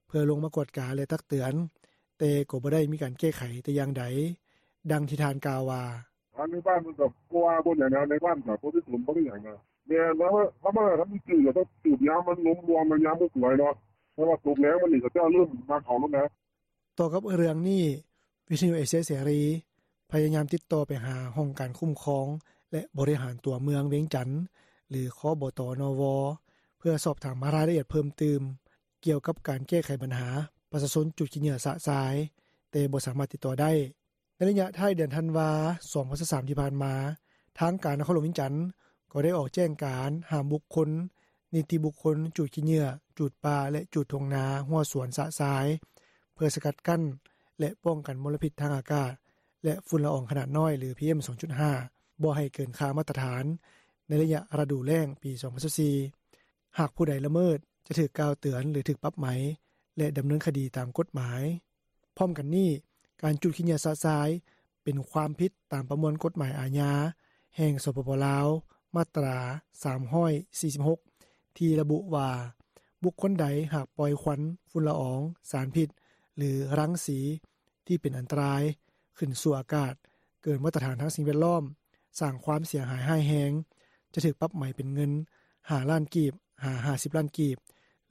ເພື່ອລົງມາກວດກາ ແລະ ຕັກເຕືອນ ແຕ່ກໍບໍ່ໄດ້ມີການແກ້ໄຂແຕ່ຢ່າງໃດ. ດັ່ງທີ່ທ່ານກ່າວວ່າ: “ທາງນາຍບ້ານເພິ່ນກໍບໍ່ວ່າບໍ່ຫຍັງນະ ນາຍບ້ານກໍບໍ່ໄດ້ສົນບໍ່ໄດ້ຫຍັງນະ ແມ່ນ ເຮົາມາທຳອິດກໍຕ້ອງສູບຍາມມັນລົມລວມຍາມບໍ່ສວຍເນາະ ເພາະວ່າຕົກແລງມານີ້ເຂົາເຈົ້າເລີ່ມມາເຂົ້າລົງນະ.” ຕໍ່ກັບເລື່ອງນີ້ ວິທຍຸເອເຊຍເສລີ ພະຍາຍາມຕິດຕໍ່ໄປຫາຫ້ອງການຄຸ້ມຄອງ ແລະ ບໍລິຫານຕົວເມືອງວຽງຈັນ ຫຼື ຄບຕນວ ເພື່ອສອບຖາມລາຍລະອຽດເພີ່ມຕື່ມ ກ່ຽວກັບການແກ້ໄຂບັນຫາປະຊາຊົນຈູດຂີ້ເຫຍື້ອຊະຊາຍ ແຕ່ບໍ່ສາມາດຕິດຕໍ່ໄດ້. ໃນໄລຍະທ້າຍເດືອນທັນວາ ສອງພັນຊາວສາມ ທີ່ຜ່ານມາ, ທາງການນະຄອນຫຼວງວຽງຈັນ ກໍໄດ້ອອກແຈ້ງການຫ້າມບຸກຄົນ, ນິຕິບຸກຄົນຈູດຂີ້ເຫຍື້ອ, ຈູດປ່າ ແລະ ຈູດທົ່ງນາ, ຮົ້ວສວນຊະຊາຍ ເພື່ອສະກັດກັ້ນ ແລະ ປ້ອງກັນມົນລະພິດທາງອາກາດ ແລະ ຝຸ່ນລະອອງຂະໜາດນ້ອຍ ຫຼື ພີເອັມ ສອງຈຸດຫ້າ ບໍ່ໃຫ້ເກີນຄ່າມາດຕະຖານ ໃນໄລຍະລະດູແລ້ງປີ ສອງພັນຊາວສີ່. ຫາກຜູ້ໃດລະເມີດ ຈະຖືກກ່າວເຕືອນ ຫຼື ຖືກປັບໃໝ ແລະ ດຳເນີນຄະດີຕາມກົດໝາຍ. ພ້ອມກັນນີ້, ການຈູດຂີ້ເຫຍື້ອຊະຊາຍ ເປັນຄວາມຜິດຕາມປະມວນກົດໝາຍອາຍາ ແຫ່ງ ສປປ ລາວ ມາດຕາ ສາມຮ້ອຍສີ່ສິບຫົກ ທີ່ລະບຸວ່າ ບຸກຄົນໃດຫາກປ່ອຍຄວັນ, ຝຸ່ນລະອອງ, ສານພິດ ຫຼື ລັງສີ ທີ່ເປັນອັນຕະລາຍ ຂຶ້ນສູ່ອາກາດ ເກີນມາດຕະຖານທາງສິ່ງແວດລ້ອມ, ສ້າງຄວາມເສຍຫາຍຮ້າຍແຮງ, ຈະຖືກປັບໃໝເປັນເງິນ ຫ້າລ້ານກີບ ຫາ ຫ້າສິບລ້ານກີບ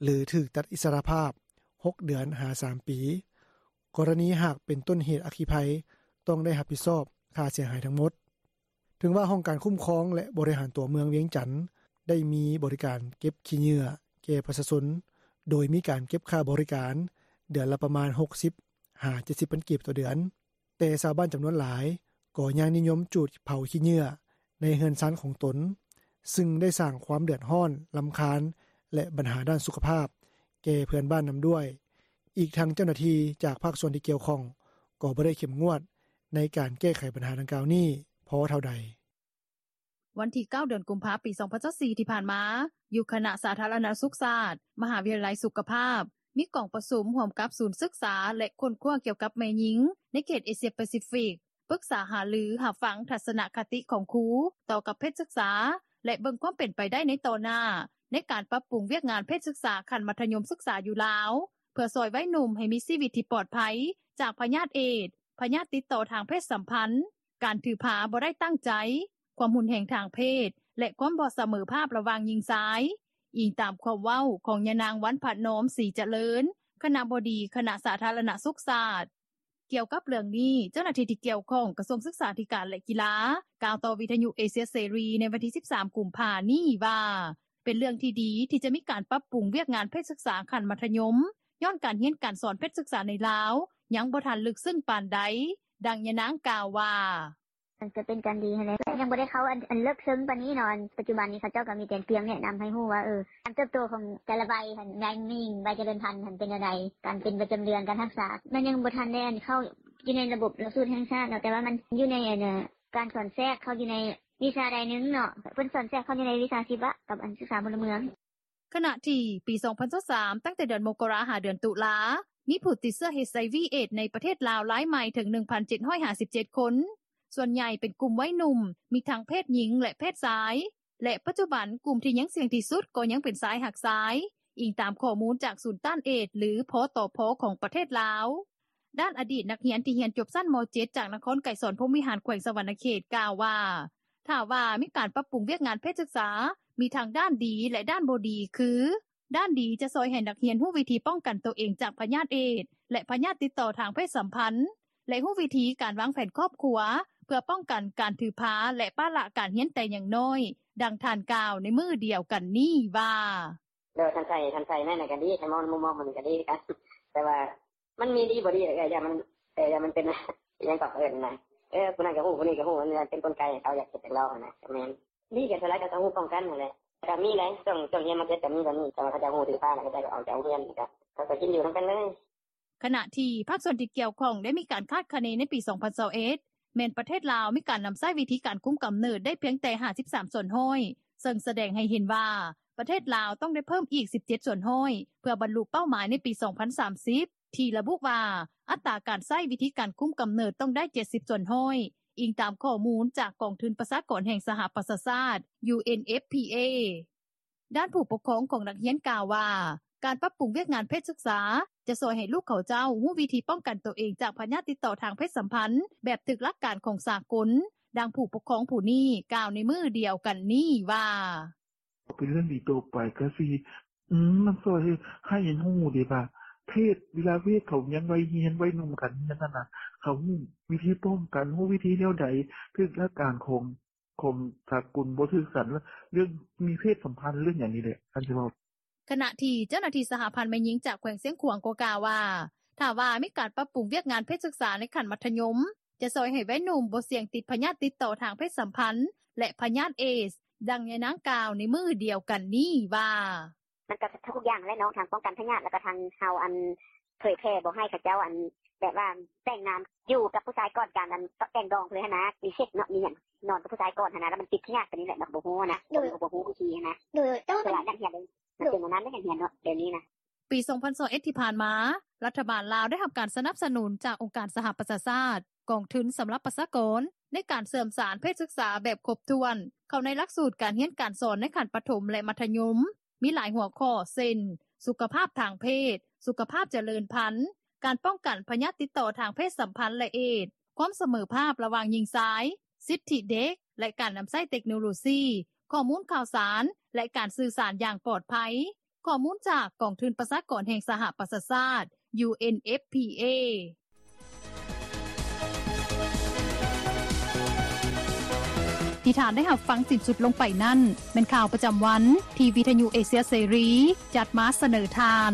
ຫຼື ຖືກຕັດອິດສະຫຼະພາບ ຫົກເດືອນ ຫາ ສາມປີ. ກໍລະນີຫາກເປັນຕົ້ນເຫດອັກຄີໄພ ຕ້ອງໄດ້ຮັບຜິດຊອບຄ່າເສຍຫາຍທັງໝົດ. ເຖິງວ່າຫ້ອງການຄຸ້ມຄອງ ແລະ ບໍລິຫານຕົວເມືອງວຽງຈັນ ໄດ້ມີບໍລິການເກັບຂີ້ເຫຍື້ອແກ່ປະຊາຊົນ ໂດຍມີການເກັບຄ່າບໍລິການເດືອນລະປະມານ ຫົກສິບ ຫາ ເຈັດສິບພັນກີບຕໍ່ເດືອນ, ແຕ່ຊາວບ້ານຈຳນວນຫຼາຍກໍຍັງນິຍົມຈູດເຜົາຂີ້ເຫຍື້ອໃນເຮືອນຊານຂອງຕົນ, ຊຶ່ງໄດ້ສ້າງຄວາມເດືອດຮ້ອນ, ລຳຄານ ແລະ ບັນຫາດ້ານສຸຂະພາບແກ່ເພື່ອນບ້ານນຳດ້ວຍ. ອີກທັງເຈົ້າໜ້າທີ່ຈາກພາກສ່ວນທີ່ກ່ຽວຂ້ອງກໍບໍ່ໄດ້ເຂັ້ມງວດໃນການແກ້ໄຂບັນຫາດັ່ງກ່າວນີ້ພໍເທົ່າໃດ. ວັນທີເກົ້າ ເດືອນກຸມພາ ປີສອງພັນຊາວສີ່ ທີ່ຜ່ານມາ, ຢູ່ຄະນະສາທາລະນະສຸກຊາດ ມະຫາວິທະຍາໄລສຸຂະພາບ ມີກອງປະຊຸມຮ່ວມກັບສູນສຶກສາ ແລະ ຄົ້ນຄວ້າກ່ຽວກັບແມ່ຍິງໃນເຂດເອເຊຍປາຊີຟິກ ປຶກສາຫາລືຮັບຟັງທັດສະນະຄະຕິຂອງຄູຕໍ່ກັບເພດສຶກສາ ແລະ ເບິ່ງຄວາມເປັນໄປໄດ້ໃນຕໍ່ໜ້າ ໃນການປັບປຸງວຽກງານເພດສຶກສາຂັ້ນມັດທະຍົມສຶກສາຢູ່ລາວ ເພື່ອຊ່ອຍໄວໜຸ່ມໃຫ້ມີຊີວິດທີ່ປອດໄພຈາກພະຍາດເອດ, ພະຍາດຕິດຕໍ່ທາງເພດສຳພັນ, ການຖືພາບໍ່ໄດ້ຕັ້ງໃຈ, ຄວາມຮຸນແຮງທາງເພດ ແລະ ຄວາມບໍ່ສະເໝີພາບລະຫວ່າງຍິງຊາຍ, ອີງຕາມຄວາມເວົ້າຂອງຍານາງ ວັນພະນອມ ສີຈະເລີນ ຄະນະບໍດີຄະນະສາທາລະນະສຸກຊາດ. ກ່ຽວກັບເລື່ອງນີ້, ເຈົ້າໜ້າທີ່ທີ່ກ່ຽວຂ້ອງກະຊວງສຶກສາທິການ ແລະ ກິລາ ກ່າວຕໍ່ວິທະຍຸເອເຊຍເສລີໃນວັນທີສິບສາມ ກຸມພານີ້ວ່າ ເປັນເລື່ອງທີ່ດີທີ່ຈະມີການປັບປຸງວຽກງານເພດສຶກສາຂັ້ນມັດທະຍົມ ຍ້ອນການຮຽນການສອນເພດສຶກສາໃນລາວຍັງບໍ່ທັນເລິກເຊິ່ງປານໃດ. ດັ່ງຍານາງກ່າວວ່າ: “ມັນກະເປັນການດີຫັ້ນແຫຼະ ແຕ່ຍັງບໍ່ໄດ້ເຂົ້າອັນເລິກເຊິ່ງປານນີ້ເນາະ ປັດຈຸບັນນີ້ເຂົາເຈົ້າກະມີແຕ່ພຽງແນະນຳໃຫ້ຮູ້ວ່າ ເອີ ການເຕີບໂຕຂອງແຕ່ລະໄວຫັ້ນ ແມ່ຍິງ ໄວຈະເລີນພັນຫັ້ນເປັນແນວໃດ ການເປັນປະຈຳເດືອນ ການຮັກສາ ມັນຍັງບໍ່ທັນໄດ້ເຂົ້າຢູ່ໃນລະບົບຫຼັກສູດແຫ່ງຊາດເນາະ ແຕ່ວ່າມັນຢູ່ໃນອັນ ການສອນແຊກເຂົ້າຢູ່ໃນວິຊາໃດໜຶ່ງເນາະ ເພິ່ນສອນແຊກເຂົ້າຢູ່ໃນວິຊາຊີວະກັບອັນສຶກສາພົນລະເມືອງ.” ຂະນະທີ່ປີສອງພັນຊາວສາມ ຕັ້ງແຕ່ເດືອນມົກກະລາ ຫາເດືອນຕຸລາ ມີຜູ້ຕິດເຊື້ອ ເອດສ໌ ເອດສ໌ ໃນປະເທດລາວລາຍໃໝ່ເຖິງ ໜຶ່ງພັນເຈັດຮ້ອຍຫ້າສິບເຈັດຄົນ ສ່ວນໃຫຍ່ເປັນກຸ່ມໄວໜຸ່ມ ມີທັງເພດຍິງ ແລະ ເພດຊາຍ ແລະ ປັດຈຸບັນກຸ່ມທີ່ຍັງສ່ຽງທີ່ສຸດກໍຍັງເປັນຊາຍຮັກຊາຍ, ອີງຕາມຂໍ້ມູນຈາກສູນຕ້ານເອດສ໌ ຫຼື ພຕພ ຂອງປະເທດລາວ. ດ້ານອະດີດນັກຮຽນທີ່ຮຽນຈົບຊັ້ນ ມ.ເຈັດ ຈາກນະຄອນໄກສອນ ພົມວິຫານ ແຂວງສະຫວັນນະເຂດ ກ່າວວ່າ ຖ້າວ່າມີການປັບປຸງວຽກງານເພດສຶກສາ ມີທັງດ້ານດີ ແລະ ດ້ານບໍ່ດີ ຄື ດ້ານດີຈະຊ່ອຍໃຫ້ນັກຮຽນຮູ້ວິທີປ້ອງກັນໂຕເອງຈາກພະຍາດເອດສ໌ ແລະ ພະຍາດຕິດຕໍ່ທາງເພດສຳພັນ ແລະ ຮູ້ວິທີການວາງແຜນຄອບຄົວ ເພື່ອປ້ອງກັນການຖືພາ ແລະ ປະລະການຮຽນແຕ່ຍັງນ້ອຍ. ດັ່ງທ່ານກ່າວໃນມື້ດຽວກັນນີ້ວ່າ: “ໂດຍ ຄັນໃສ່ ຄັນໃສ່ແມ່ນກະດີ ຄັນມອງໃນມຸມມອງມັນກະດີຄືກັນ ແຕ່ວ່າ ມັນມີດີບໍ່ດີແຫຼະ ເອື້ອຍ ຢ້ານມັນ ເອີ ຢ້ານມັນເປັນ ອີ່ຫຍັງເກາະ ເອີ້ນນະ ເອີ ຜູ້ນັ້ນກະຮູ້ ຜູ້ນີ້ກະຮູ້ ມັນເປັນກົນໄກໃຫ້ເຂົາຢາກເຮັດຢາກລອງຫັ້ນນະ ກະແມ່ນ ດີກະສ່ວນຫຼາຍເຂົາກະຮູ້ປ້ອງກັນຫັ້ນແຫຼະ ກະມີໄດ໋ ຊ່ວງ ຊ່ວງຮຽນ ມ.ເຈັດ ກະມີແບບນີ້ ແຕ່ວ່າເຂົາເຈົ້າຮູ້ຖືພາແລ້ວ ເຂົາເຈົ້າກະອອກຈາກໂຮງຮຽນ ກະເຂົາກະກິນຢູ່ນຳກັນເລີຍ.” ຂະນະທີ່ພາກສ່ວນທີ່ກ່ຽວຂ້ອງໄດ້ມີການຄາດຄະເນໃນປີສອງພັນຊາວເອັດ ແມ່ນປະເທດລາວມີການນຳໃຊ້ວິທີການຄຸມກຳເນີດໄດ້ພຽງແຕ່ຫ້າສິບສາມສ່ວນຮ້ອຍ ເຊິ່ງສະແດງໃຫ້ເຫັນວ່າ ປະເທດລາວຕ້ອງໄດ້ເພີ່ມອີກສິບເຈັດສ່ວນຮ້ອຍ ເພື່ອບັນລຸເປົ້າໝາຍໃນປີສອງພັນສາມສິບ ທີ່ລະບຸວ່າ ອັດຕາການໃຊ້ວິທີການຄຸມກຳເນີດຕ້ອງໄດ້ເຈັດສິບສ່ວນຮ້ອຍ ອີງຕາມຂໍ້ມູນຈາກກອງທຶນປະຊາກອນແຫ່ງສະຫະປະຊາຊາດ UNFPA. ດ້ານຜູ້ປົກຄອງຂອງນັກຮຽນກ່າວວ່າ ການປັບປຸງວຽກງານເພດສຶກສາ ຈະຊ່ອຍໃຫ້ລູກເຂົາເຈົ້າຮູ້ວິທີປ້ອງກັນໂຕເອງຈາກພະຍາດຕິດຕໍ່ທາງເພດສຳພັນ ແບບຖືກຫຼັກການຂອງສາກົນ. ດັ່ງຜູ້ປົກຄອງຜູ້ນີ້ກ່າວໃນມື້ດຽວກັນນີ້ວ່າ: ເປັນເລື່ອງດີຕໍ່ໄປ ກະຊິ ອືມ ມັນຊ່ອຍໃຫ້ ໃຫ້ຮູ້ເດ້ວ່າ ເພດ ເວລາເພດເຂົາຍັງໄວຮຽນ ໄວໜຸ່ມກັນນັ້ນນະ ເຂົາຮູ້ວິທີປ້ອງກັນ ຮູ້ວິທີແນວໃດ ເພດຫຼັກການຂອງ ຂອງສາກົນບໍ່ຖືກກັນ ເລື່ອງມີເພດສຳພັນ ເລື່ອງຫຍັງນີ້ແຫຼະ ຄັນຊິເວົ້າ. ຂະນະທີ່ເຈົ້າໜ້າທີ່ສະຫະພັນແມ່ຍິງຈາກແຂວງຊຽງຂວາງກໍກ່າວວ່າ ຖ້າວ່າມີການປັບປຸງວຽກງານເພດສຶກສາໃນຂັ້ນມັດທະຍົມ ຈະຊ່ອຍໃຫ້ໄວໜຸ່ມບໍ່ສ່ຽງຕິດພະຍາດຕິດຕໍ່ທາງເພດສຳພັນ ແລະ ພະຍາດເອດສ໌. ດັ່ງຍາຍນາງກ່າວໃນມື້ດຽວກັນນີ້ວ່າ: ມັນກໍທຸກຢ່າງແຫຼະເນາະ ທັງປ້ອງກັນພະຍາດ ແລ້ວກໍທັງເຮົາ ອັນ ເຜີຍແຜ່ບໍ່ໃຫ້ເຂົາເຈົ້າ ອັນ ແບບວ່າແຕ່ງງານຢູ່ກັບຜູ້ຊາຍກ່ອນການ ອັນ ແຕ່ງດອງເລີຍຫັ້ນນະ ມີເຊັກເນາະ ມີຫຍັງ ນອນກັບຜູ້ຊາຍກ່ອນຫັ້ນນະ ແລ້ວມັນຕິດພະຍາດໄປນີ້ແຫຼະ ມັນກໍບໍ່ຮູ້ຫັ້ນນະ ໂດຍ ກໍບໍ່ຮູ້ວິທີຫັ້ນນະ ໂດຍ ຕ້ອງ ສະຫຼາຍນັກຮຽນເລີຍ ມັນເປັນແນວນັ້ນເດ້ ນັກຮຽນເນາະ ດຽວນີ້ນະ. ປີສອງພັນຊາວເອັດທີ່ຜ່ານມາ ລັດຖະບານລາວໄດ້ຮັບການສະໜັບສະໜູນຈາກອົງການສະຫະປະຊາຊາດ ກອງທຶນສຳລັບປະຊາກອນ ໃນການເຊື່ອມສານເພດສຶກສາແບບຄົບຖ້ວນ ເຂົ້າໃນຫຼັກສູດການຮຽນການສອນໃນຂັ້ນປະຖົມ ແລະ ມັດທະຍົມ ມີຫຼາຍຫົວຂໍ້ ເຊັ່ນ ສຸຂະພາບທາງເພດ, ສຸຂະພາບຈະເລີນພັນ, ການປ້ອງກັນພະຍາດຕິດຕໍ່ທາງເພດສຳພັນ ແລະ ເອດສ໌, ຄວາມສະເໝີພາບລະຫວ່າງຍິງຊາຍ, ສິດທິເດັກ ແລະ ການນຳໃຊ້ເຕັກໂນໂລຊີ, ຂໍ້ມູນຂ່າວສານ ແລະ ການສື່ສານຢ່າງປອດໄພ. ຂໍ້ມູນຈາກກອງທຶນປະຊາກອນແຫ່ງສະຫະປະຊາຊາດ UNFPA. ທີ່ທ່ານໄດ້ຮັບຟັງສິ້ນສຸດລົງໄປນັ້ນ ແມ່ນຂ່າວປະຈຳວັນທີ່ວິທະຍຸເອເຊຍເສລີຈັດມາສະເໜີທ່ານ.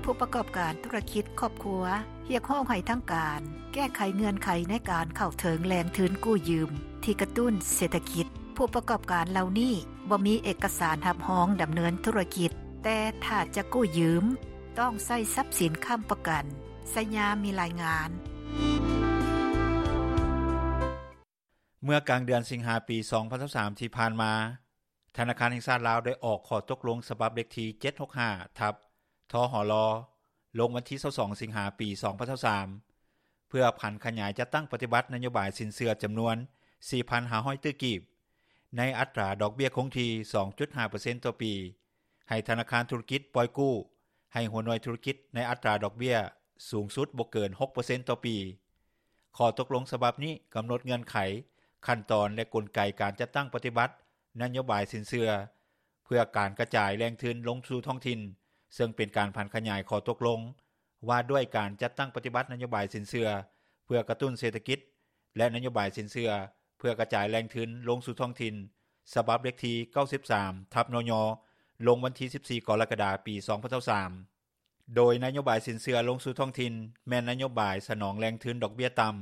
ຜູ້ປະກອບການທຸລະກິດຄອບຄົວ ຮຽກຮ້ອງໃຫ້ທາງການແກ້ໄຂເງື່ອນໄຂໃນການເຂົ້າເຖິງແຫຼ່ງທຶນກູ້ຢືມທີ່ກະຕຸ້ນເສດຖະກິດ. ຜູ້ປະກອບການເຫຼົ່ານີ້ບໍ່ມີເອກະສານຮັບຮອງດຳເນີນທຸລະກິດ, ແຕ່ຖ້າຈະກູ້ຢືມ ຕ້ອງໃຊ້ຊັບສິນຄ້ຳປະກັນ. ໄຊຍາມີລາຍງານ. ເມື່ອກາງເດືອນສິງຫາ ປີສອງພັນຊາວສາມ ທີ່ຜ່ານມາ, ທະນາຄານແຫ່ງຊາດລາວໄດ້ອອກຂໍ້ຕົກລົງສະບັບເລກທີ ເຈັດຫົກຫ້າ ທັບ ທຫລ ລົງວັນທີ ຊາວສອງ ສິງຫາ ປີສອງພັນຊາວສາມ ເພື່ອຜັນຂະຫຍາຍຈັດຕັ້ງປະຕິບັດນະໂຍບາຍສິນເຊື່ອຈຳນວນ ສີ່ພັນຫ້າຮ້ອຍຕື້ກີບ ໃນອັດຕາດອກເບ້ຍຄົງທີ່ ສອງຈຸດຫ້າເປີເຊັນຕໍ່ປີ ໃຫ້ທະນາຄານທຸລະກິດປ່ອຍກູ້ໃຫ້ຫົວໜ່ວຍທຸລະກິດໃນອັດຕາດອກເບ້ຍສູງສຸດບໍ່ເກີນ ຫົກເປີເຊັນຕໍ່ປີ. ຂໍ້ຕົກລົງສະບັບນີ້ກຳນົດເງື່ອນໄຂ, ຂັ້ນຕອນ ແລະ ກົນໄກການຈັດຕັ້ງປະຕິບັດນະໂຍບາຍສິນເຊື່ອ ເພື່ອການກະຈາຍແຫຼ່ງທຶນລົງສູ່ທ້ອງຖິ່ນ, ເຊິ່ງເປັນການຜັນຂະຫຍາຍຂໍ້ຕົກລົງວ່າດ້ວຍການຈັດຕັ້ງປະຕິບັດນະໂຍບາຍສິນເຊື່ອເພື່ອກະຕຸ້ນເສດຖະກິດ ແລະ ນະໂຍບາຍສິນເຊື່ອເພື່ອກະຈາຍແຫຼ່ງທຶນລົງສູ່ທ້ອງຖິ່ນ ສະບັບເລກທີ ເກົ້າສິບສາມ ທັບ ນຍ ລົງວັນທີ ສິບສີ່ ກໍລະກະດາ ປີສອງພັນຊາວສາມ ໂດຍນະໂຍບາຍສິນເຊື່ອລົງສູ່ທ້ອງຖິ່ນ ແມ່ນນະໂຍບາຍສະໜອງແຫຼ່ງທຶນດອກເບ້ຍຕ່ຳ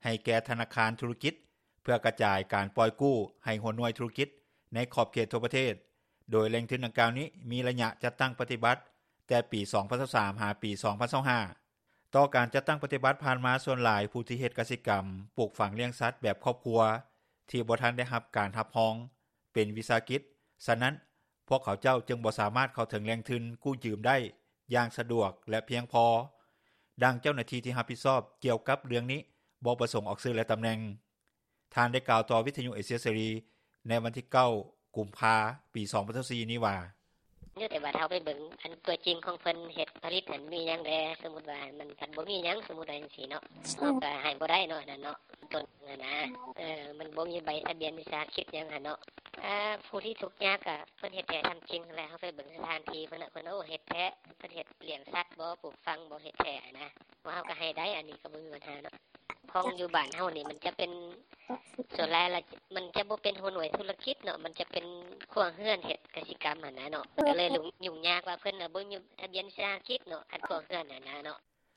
ໃຫ້ແກ່ທະນາຄານທຸລະກິດ ເພື່ອກະຈາຍການປ່ອຍກູ້ໃຫ້ຫົວໜ່ວຍທຸລະກິດໃນຂອບເຂດທົ່ວປະເທດ, ໂດຍແຫຼ່ງທຶນດັ່ງກ່າວນີ້ມີໄລຍະຈັດຕັ້ງປະຕິບັດແຕ່ປີສອງພັນຊາວສາມ ຫາປີສອງພັນຊາວຫ້າ. ຕໍ່ການຈັດຕັ້ງປະຕິບັດຜ່ານມາ, ສ່ວນຫຼາຍຜູ້ທີ່ເຮັດກະສິກຳ, ປູກຝັງລ້ຽງສັດແບບຄອບຄົວ ທີ່ບໍ່ທັນໄດ້ຮັບການຮັບຮອງເປັນວິສາຫະກິດ, ສະນັ້ນ ພວກເຂົາເຈົ້າຈຶ່ງບໍ່ສາມາດເຂົ້າເຖິງແຫຼ່ງທຶນກູ້ຢືມໄດ້ຢ່າງສະດວກ ແລະ ພຽງພໍ. ດັ່ງເຈົ້າໜ້າທີ່ທີ່ຮັບຜິດຊອບກ່ຽວກັບເລື່ອງນີ້ ບໍ່ປະສົງອອກຊື່ ແລະ ຕຳແໜ່ງ, ທ່ານໄດ້ກ່າວຕໍ່ວິທະຍຸເອເຊຍເສລີໃນວັນທີ ເກົ້າ ກຸມພາ ປີສອງພັນຊາວສີ່ ນີ້ວ່າ: ຢູ່ແຕ່ວ່າເຮົາໄປເບິ່ງອັນຕົວຈິງຂອງເພິ່ນເຮັດຜະລິດຫັ້ນມີຫຍັງແດ່, ສົມມຸດວ່າມັນພັດບໍ່ມີຫຍັງ, ສົມມຸດວ່າຈັ່ງຊີ້ເນາະ, ເຮົາກໍໃຫ້ບໍ່ໄດ້ເນາະ ອັນນັ້ນເນາະ, ຕົ້ນຫັ້ນນະ, ເອີ ມັນບໍ່ມີໃບທະບຽນວິສາຫະກິດຫຍັງຫັ້ນເນາະ. ອາ ຜູ້ທີ່ທຸກຍາກກໍເພິ່ນເຮັດແທ້ທຳຈິງຫັ້ນແຫຼະ, ເຮົາໄປເບິ່ງສະຖານທີ່ເພິ່ນນະ, ເພິ່ນ ໂອ້ ເຮັດແທ້, ເພິ່ນເຮັດລ້ຽງສັດບໍ, ປູກຝັງບໍ, ເຮັດແທ້ຫັ້ນນະ, ວ່າເຮົາກໍໃຫ້ໄດ້, ອັນນີ້ກໍບໍ່ມີບັນຫາເນາະ. ຂອງຢູ່ບ້ານເຮົານີ້ມັນຈະເປັນ ສ່ວນຫຼາຍລະມັນຈະບໍ່ເປັນຫົວໜ່ວຍທຸລະກິດເນາະ, ມັນຈະເປັນຄົວເຮືອນເຮັດກະສິກຳຫັ້ນນະເນາະ, ກໍເລີຍຫຍຸ້ງຍາກວ່າເພິ່ນນະບໍ່ມີທະບຽນວິສາຫະກິດເນາະ, ຄັນຄົວເຮືອນຫັ້ນນະເນາະ.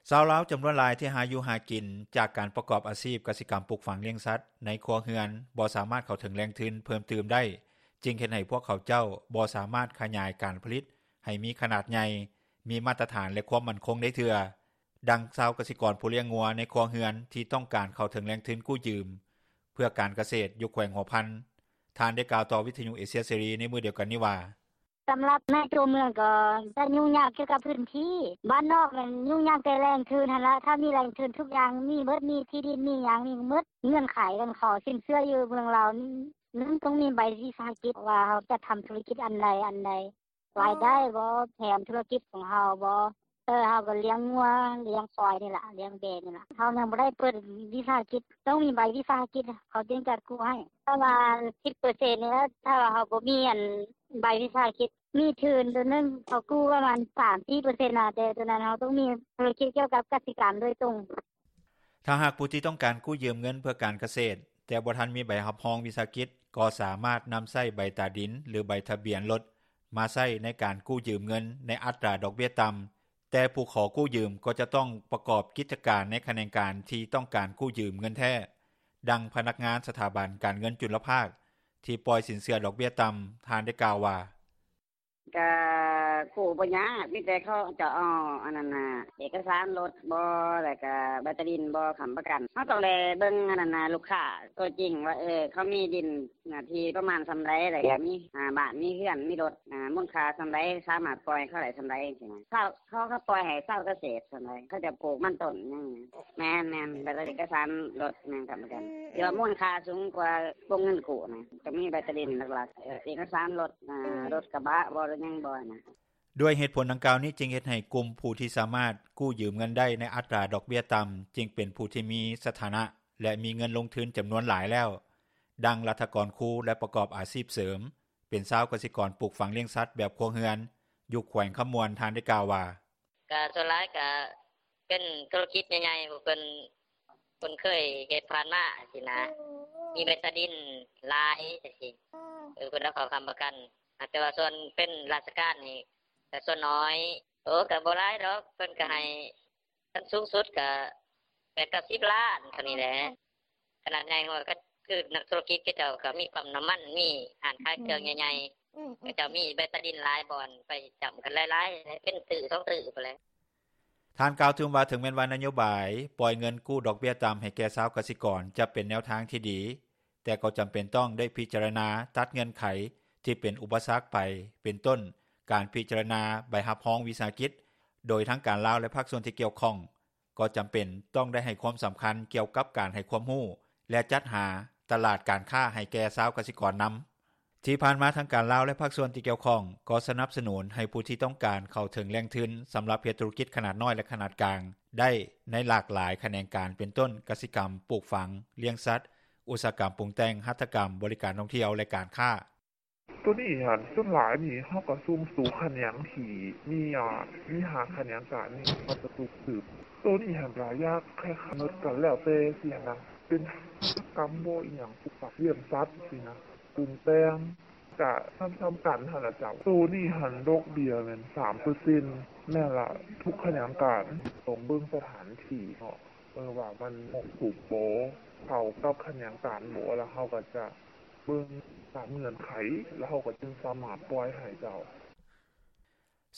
ຊາວລາວຈຳນວນຫຼາຍທີ່ຫາຢູ່ຫາກິນຈາກການປະກອບອາຊີບກະສິກຳປູກຝັງລ້ຽງສັດໃນຄົວເຮືອນ ບໍ່ສາມາດເຂົ້າເຖິງແຫຼ່ງທຶນເພີ່ມຕື່ມໄດ້ ຈຶ່ງເຮັດໃຫ້ພວກເຂົາເຈົ້າບໍ່ສາມາດຂະຫຍາຍການຜະລິດໃຫ້ມີຂະໜາດໃຫຍ່, ມີມາດຕະຖານ ແລະ ຄວາມໝັ້ນຄົງໄດ້ເທື່ອ. ດັ່ງຊາວກະສິກອນຜູ້ລ້ຽງງົວໃນຄົວເຮືອນທີ່ຕ້ອງການເຂົ້າເຖິງແຫຼ່ງທຶນກູ້ຢືມ ເພື່ອການກະເສດຢູ່ແຂວງຫົວພັນ ທ່ານໄດ້ກ່າວຕໍ່ວິທຍຸເອເຊຍເສລີໃນມື້ດຽວກັນນີ້ວ່າ: ສຳລັບໃນຕົວເມືອງກໍຈະຫຍຸ້ງຍາກກ່ຽວກັບພື້ນທີ່, ບ້ານນອກແມ່ນຫຍຸ້ງຍາກແຕ່ແຫຼ່ງທຶນຫັ້ນລະ, ຖ້າມີແຫຼ່ງທຶນທຸກຢ່າງມີເບິດ, ມີທີ່ດິນມີຫຍັງມີເບິດ, ເງື່ອນໄຂການຂໍສິນເຊື່ອຢູ່ເມືອງລາວນີ້ ໜຶ່ງຕ້ອງມີໃບວິສາຫະກິດວ່າເຮົາຈະທຳທຸລະກິດອັນໃດອັນໃດ, ລາຍໄດ້ບໍ່, ແຖມທຸລະກິດຂອງເຮົາບໍ່, ເອີ ເຮົາກໍລ້ຽງງົວລ້ຽງຄວາຍນີ້ລະ, ລ້ຽງແບະນີ້ລະ, ເຮົາຍັງບໍ່ໄດ້ເປີດວິສາຫະກິດ, ຕ້ອງມີໃບວິສາຫະກິດເຂົາຈຶ່ງຈັດກູ້ໃຫ້, ປະມານສິບເປີເຊັນນີ້ລະ, ຖ້າວ່າເຮົາບໍ່ມີອັນໃບວິສາຫະກິດ ມີທຶນໂຕໜຶ່ງເຂົາກູ້ປະມານສາມສີ່ເປີເຊັນນະ, ແຕ່ໂຕນັ້ນເຮົາຕ້ອງມີທຸລະກິດກ່ຽວກັບກະສິກຳໂດຍຕົງ. ຖ້າຫາກຜູ້ທີ່ຕ້ອງການກູ້ຢືມເງິນເພື່ອການກະເສດ ແຕ່ບໍ່ທັນມີໃບຮັບຮອງວິສາຫະກິດ ກໍສາມາດນຳໃຊ້ໃບຕາດິນ ຫຼື ໃບທະບຽນລົດມາໃຊ້ໃນການກູ້ຢືມເງິນໃນອັດຕາດອກເບ້ຍຕ່ຳ, ແຕ່ຜູ້ຂໍກູ້ຢືມກໍຈະຕ້ອງປະກອບກິດຈະການໃນຂະແໜງການທີ່ຕ້ອງການກູ້ຢືມເງິນແທ້. ດັ່ງພະນັກງານສະຖາບັນການເງິນຈຸນລະພາກທີ່ປ່ອຍສິນເຊື່ອດອກເບ້ຍຕ່ຳ ທ່ານໄດ້ກ່າວວ່າ: ກະກູ້ບໍ່ຍາກ, ມີແຕ່ເຂົາເຈົ້າເອົາອັນນັ້ນນະ ເອກະສານລົດບໍ ແລ້ວກະໃບຕາດິນບໍ ຄ້ຳປະກັນ. ເຮົາຕ້ອງໄດ້ເບິ່ງອັນນັ້ນນະ ລູກຄ້າຕົວຈິງວ່າ ເອີ ເຂົາມີດິນເນື້ອທີ່ປະມານສ່ຳໃດ ແລ້ວກະມີ ອາ ບ້ານ ມີເຮືອນ ມີລົດ ອາ ມູນຄ່າສ່ຳໃດ ສາມາດປ່ອຍໃຫ້ເຂົາໄດ້ສ່ຳໃດ ຈັ່ງຊີ້ນະ. ເຂົາ ເຂົາ ເຂົາປ່ອຍໃຫ້ຊາວກະເສດສ່ຳໃດ ເຂົາຈະປູກມັນຕົ້ນຫຍັງ. ແມ່ນໆ ແລ້ວກະເອກະສານລົດ ແມ່ນຄ້ຳປະກັນ ທີ່ວ່າມູນຄ່າສູງກວ່າວົງເງິນກູ້ນະ. ຈະມີໃບຕາດິນຫຼັກໆ ເອກະສານລົດ ອາ ລົດກະບະບໍ ຫຼືຫຍັງບໍນະ. ດ້ວຍເຫດຜົນດັ່ງກ່າວນີ້ ຈຶ່ງເຮັດໃຫ້ກຸ່ມຜູ້ທີ່ສາມາດກູ້ຢືມເງິນໄດ້ໃນອັດຕາດອກເບ້ຍຕ່ຳ ຈຶ່ງເປັນຜູ້ທີ່ມີສະຖານະ ແລະ ມີເງິນລົງທຶນຈຳນວນຫຼາຍແລ້ວ. ດັ່ງລັດຖະກອນຄູ ແລະ ປະກອບອາຊີບເສີມ ເປັນຊາວກະສິກອນປູກຝັງລ້ຽງສັດແບບຄົວເຮືອນ ຢູ່ແຂວງຄຳມ່ວນ ທ່ານໄດ້ກ່າວວ່າ: ກະສ່ວນຫຼາຍກະເປັນທຸລະກິດໃຫຍ່ໆ ຜູ້ເພິ່ນ ເພິ່ນເຄີຍເຮັດຜ່ານມາຊີ້ນະ, ມີໃບຕາດິນຫຼາຍຈັ່ງຊີ້ ເອີ ເພິ່ນເອົາເຂົ້າຄ້ຳປະກັນ. ແຕ່ວ່າສ່ວນເປັນລາຊະການນີ້ກະສ່ວນນ້ອຍ. ໂອ້ ກະບໍ່ຫຼາຍດອກ, ເພິ່ນກະໃຫ້ ຂັ້ນສູງສຸດກະແປດເກົ້າສິບລ້ານເທົ່ານີ້ແຫຼະ. ຂະໜາດໃຫຍ່ກວ່າກະຄືນັກທຸລະກິດ ເຂົາເຈົ້າກະມີປ້ຳນ້ຳມັນ ມີຮ້ານຂາຍເຄື່ອງໃຫຍ່ໆ, ເຂົາເຈົ້າມີໃບຕາດິນຫຼາຍບ່ອນ ໄປຈ້ຳກັນຫຼາຍໆ ເປັນຕື້ສອງຕື້ພຸ້ນແຫຼະ. ທ່ານກ່າວຕື່ມວ່າ ເຖິງແມ່ນວ່ານະໂຍບາຍປ່ອຍເງິນກູ້ດອກເບ້ຍຕ່ຳໃຫ້ແກ່ຊາວກະສິກອນ ຈະເປັນແນວທາງທີ່ດີ ແຕ່ກໍຈຳເປັນຕ້ອງໄດ້ພິຈາລະນາຕັດເງື່ອນໄຂທີ່ເປັນອຸປະສັກໄປ ເປັນຕົ້ນ ການພິຈາລະນາໃບຮັບຮອງວິສາຫະກິດ ໂດຍທາງການລາວ ແລະ ພາກສ່ວນທີ່ກ່ຽວຂ້ອງ ກໍຈຳເປັນຕ້ອງໄດ້ໃຫ້ຄວາມສຳຄັນກ່ຽວກັບການໃຫ້ຄວາມຮູ້ ແລະ ຈັດຫາຕະຫຼາດການຄ້າໃຫ້ແກ່ຊາວກະສິກອນນຳ. ທີ່ຜ່ານມາທາງການລາວ ແລະ ພາກສ່ວນທີ່ກ່ຽວຂ້ອງ ກໍສະໜັບສະໜູນໃຫ້ຜູ້ທີ່ຕ້ອງການເຂົ້າເຖິງແຫຼ່ງທຶນສຳລັບເຮັດທຸລະກິດຂະໜາດນ້ອຍ ແລະ ຂະໜາດກາງໄດ້ໃນຫຼາກຫຼາຍຂະແໜງການ ເປັນຕົ້ນ ກະສິກຳ, ປູກຝັງ, ລ້ຽງສັດ, ອຸດສາຫະກຳປຸງແຕ່ງ, ຫັດຖະກຳ, ບໍລິການທ່ອງທ່ຽວ ແລະ ການຄ້າ. ໂຕນີ້ຫັ້ນ ສ່ວນຫຼາຍນີ້ເຮົາກະຊຸມສູ່ຂະແໜງທີ່ມີ ອາ ມີຫ້າຂະແໜງການນີ້ ເຮົາກະຊຸມສືບ. ໂຕນີ້ຫັ້ນກະຢາກຄ້າຍໆ ກະແລ້ວແຕ່ຊີ້ນະ ເປັນຫັດຖະກຳບໍ ອີ່ຫຍັງ ປູກຝັງ, ລ້ຽງສັດຊີ້ນະ, ປຸງແຕ່ງ ກະສ່ຳໆກັນຫັ້ນລະເຈົ້າ. ໂຕນີ້ຫັ້ນດອກເບ້ຍແມ່ນສາມເປີເຊັນ. ແມ່ນລະ ທຸກຂະແໜງການຕ້ອງເບິ່ງສະຖານທີ່ເນາະ ເອີ ວ່າມັນເໝາະສົມບໍ່ ເຂົ້າກັບຂະແໜງການບໍ່ ລະເຮົາກະຈະເບິ່ງຕາມເງື່ອນໄຂ ລະເຮົາກະຈຶ່ງສາມາດປ່ອຍໃຫ້ເຈົ້າ.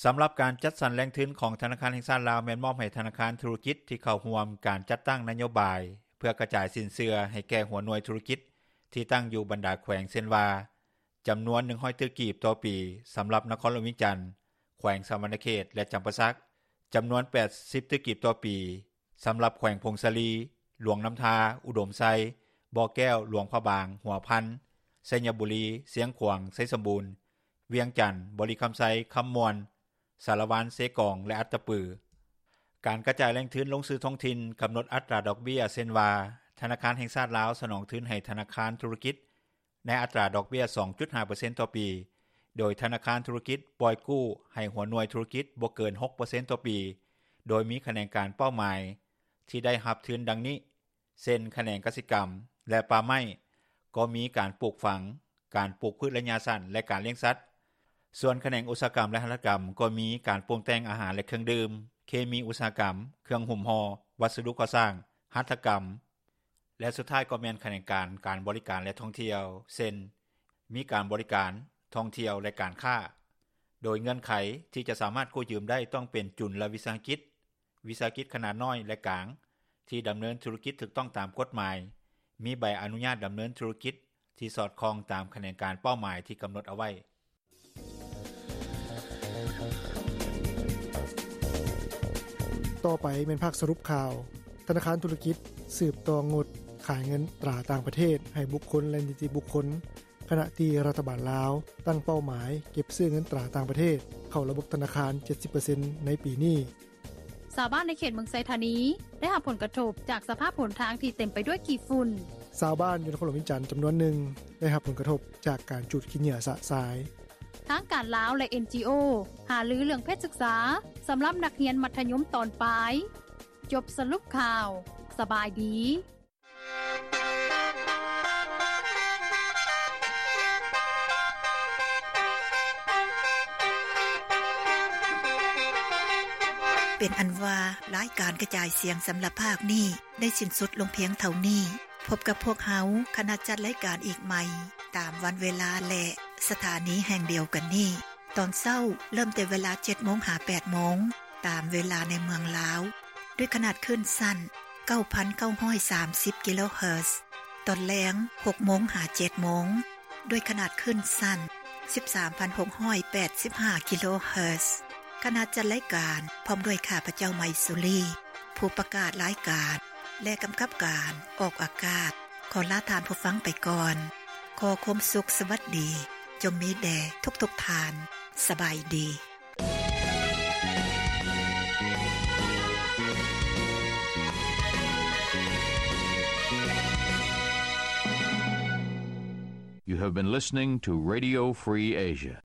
ສຳລັບການຈັດສັນແຫຼ່ງທຶນຂອງທະນາຄານແຫ່ງຊາດລາວ ແມ່ນມອບໃຫ້ທະນາຄານທຸລະກິດທີ່ເຂົ້າຮ່ວມການຈັດຕັ້ງນະໂຍບາຍ ເພື່ອກະຈາຍສິນເຊື່ອໃຫ້ແກ່ຫົວໜ່ວຍທຸລະກິດທີ່ຕັ້ງຢູ່ບັນດາແຂວງ ເຊັ່ນວ່າ ຈຳນວນໜຶ່ງຮ້ອຍຕື້ກີບຕໍ່ປີ ສຳລັບນະຄອນຫຼວງວຽງຈັນ, ແຂວງສະຫວັນນະເຂດ ແລະ ຈຳປາສັກ, ຈຳນວນແປດສິບຕື້ກີບຕໍ່ປີ ສຳລັບແຂວງຜົ້ງສາລີ, ຫຼວງນ້ຳທາ, ອຸດົມໄຊ, ບໍ່ແກ້ວ, ຫຼວງພະບາງ, ຫົວພັນ, ໄຊຍະບູລີ, ຊຽງຂວາງ, ໄຊສົມບູນ, ວຽງຈັນ, ບໍລິຄຳໄຊ, ຄຳມ່ວນ, ສາລະວັນ, ເຊກອງ ແລະ ອັດຕະປື. ການກະຈາຍແຫຼ່ງທຶນລົງສູ່ທ້ອງຖິ່ນ ກຳນົດອັດຕາດອກເບ້ຍ ເຊັ່ນວ່າ ທະນາຄານແຫ່ງຊາດລາວສະໜອງທຶນໃຫ້ທະນາຄານທຸລະກິດ ໃນອັດຕາດອກເບ້ຍສອງຈຸດຫ້າເປີເຊັນຕໍ່ປີ, ໂດຍທະນາຄານທຸລະກິດປ່ອຍກູ້ໃຫ້ຫົວໜ່ວຍທຸລະກິດບໍ່ເກີນຫົກເປີເຊັນຕໍ່ປີ, ໂດຍມີຂະແໜງການເປົ້າໝາຍທີ່ໄດ້ຮັບທຶນດັ່ງນີ້ ເຊັ່ນ ຂະແໜງກະສິກຳ ແລະ ປ່າໄມ້ ກໍມີການປູກຝັງ, ການປູກພືດໄລຍະສັ້ນ ແລະ ການລ້ຽງສັດ. ສ່ວນຂະແໜງອຸດສາຫະກຳ ແລະ ຫັດຖະກຳ ກໍມີການປຸງແຕ່ງອາຫານ ແລະ ເຄື່ອງດື່ມ, ເຄມີອຸດສາຫະກຳ, ເຄື່ອງຫຸ້ມຫໍ່, ວັດສະດຸກໍ່ສ້າງ, ຫັດຖະກຳ ແລະ ສຸດທ້າຍກໍແມ່ນຂະແໜງການການບໍລິການ ແລະ ທ່ອງທ່ຽວ ເຊັ່ນ ມີການບໍລິການ, ທ່ອງທ່ຽວ ແລະ ການຄ້າ. ໂດຍເງື່ອນໄຂທີ່ຈະສາມາດກູ້ຢືມໄດ້ຕ້ອງເປັນຈຸນລະວິສາຫະກິດ, ວິສາຫະກິດຂະໜາດນ້ອຍ ແລະ ກາງ ທີ່ດຳເນີນທຸລະກິດຖືກຕ້ອງຕາມກົດໝາຍ, ມີໃບອະນຸຍາດດຳເນີນທຸລະກິດທີ່ສອດຄ່ອງຕາມຂະແໜງການເປົ້າໝາຍທີ່ກຳນົດເອົາໄວ້. ຕໍ່ໄປແມ່ນພາກສະຫຼຸບຂ່າວ. ທະນາຄານທຸລະກິດສືບຕໍ່ງົດຂາຍເງິນຕາຕ່າງປະເທດໃຫ້ບຸກຄົນ ແລະ ນິຕິບຸກຄົນ, ຂະນະທີ່ລັດຖະບານລາວຕັ້ງເປົ້າໝາຍເກັບຊື້ເງິນຕາຕ່າງປະເທດເຂົ້າລະບົບທະນາຄານ ເຈັດສິບເປີເຊັນ ໃນປີນີ້. ຊາວບ້ານໃນເຂດເມືອງໄຊທານີ ໄດ້ຮັບຜົນກະທົບຈາກສະພາບຫົນທາງທີ່ເຕັມໄປດ້ວຍຂີ້ຝຸ່ນ. ຊາວບ້ານຢູ່ນະຄອນຫຼວງວຽງຈັນຈຳນວນໜຶ່ງ ໄດ້ຮັບຜົນກະທົບຈາກການຈູດຂີ້ເຫຍື້ອຊະຊາຍ. ທາງການລາວ ແລະ ເອັນຈີໂອ ຫາລືເລື່ອງເພດສຶກສາ ສຳລັບນັກຮຽນມັດທະຍົມຕອນປາຍ. ຈົບສະຫຼຸບຂ່າວ. ສະບາຍດີ. ເປັນອັນວ່າ ລາຍການກະຈາຍສຽງສຳລັບພາກນີ້ ໄດ້ສິ້ນສຸດລົງພຽງເທົ່ານີ້. ພົບກັບພວກເຮົາ ຄະນະຈັດລາຍການອີກໃໝ່ ຕາມວັນເວລາ ແລະ ສະຖານີແຫ່ງດຽວກັນນີ້. ຕອນເຊົ້າເລີ່ມແຕ່ເວລາ ເຈັດໂມງ ຫາ ແປດໂມງ ຕາມເວລາໃນເມືອງລາວ ດ້ວຍຂະໜາດຄື້ນສັ້ນ ເກົ້າພັນເກົ້າຮ້ອຍສາມສິບ ກິໂລເຮີດ. ຕອນແລງ ຫົກໂມງ ຫາ ເຈັດໂມງ ດ້ວຍຂະໜາດຄື້ນສັ້ນ ສິບສາມພັນຫົກຮ້ອຍແປດສິບຫ້າ ກິໂລເຮີດ. ຄະນະຈັດລາຍການ ພ້ອມດ້ວຍຂ້າພະເຈົ້າ ໄມສຸລີ ຜູ້ປະກາດລາຍການ ແລະ ກຳກັບການອອກອາກາດ ຂໍລາທ່ານຜູ້ຟັງໄປກ່ອນ. ຂໍຄວາມສຸກສະຫວັດດີ ຈົ່ງມີແດ່ທຸກໆທ່ານ. ສະບາຍດີ. You have been listening to Radio Free Asia.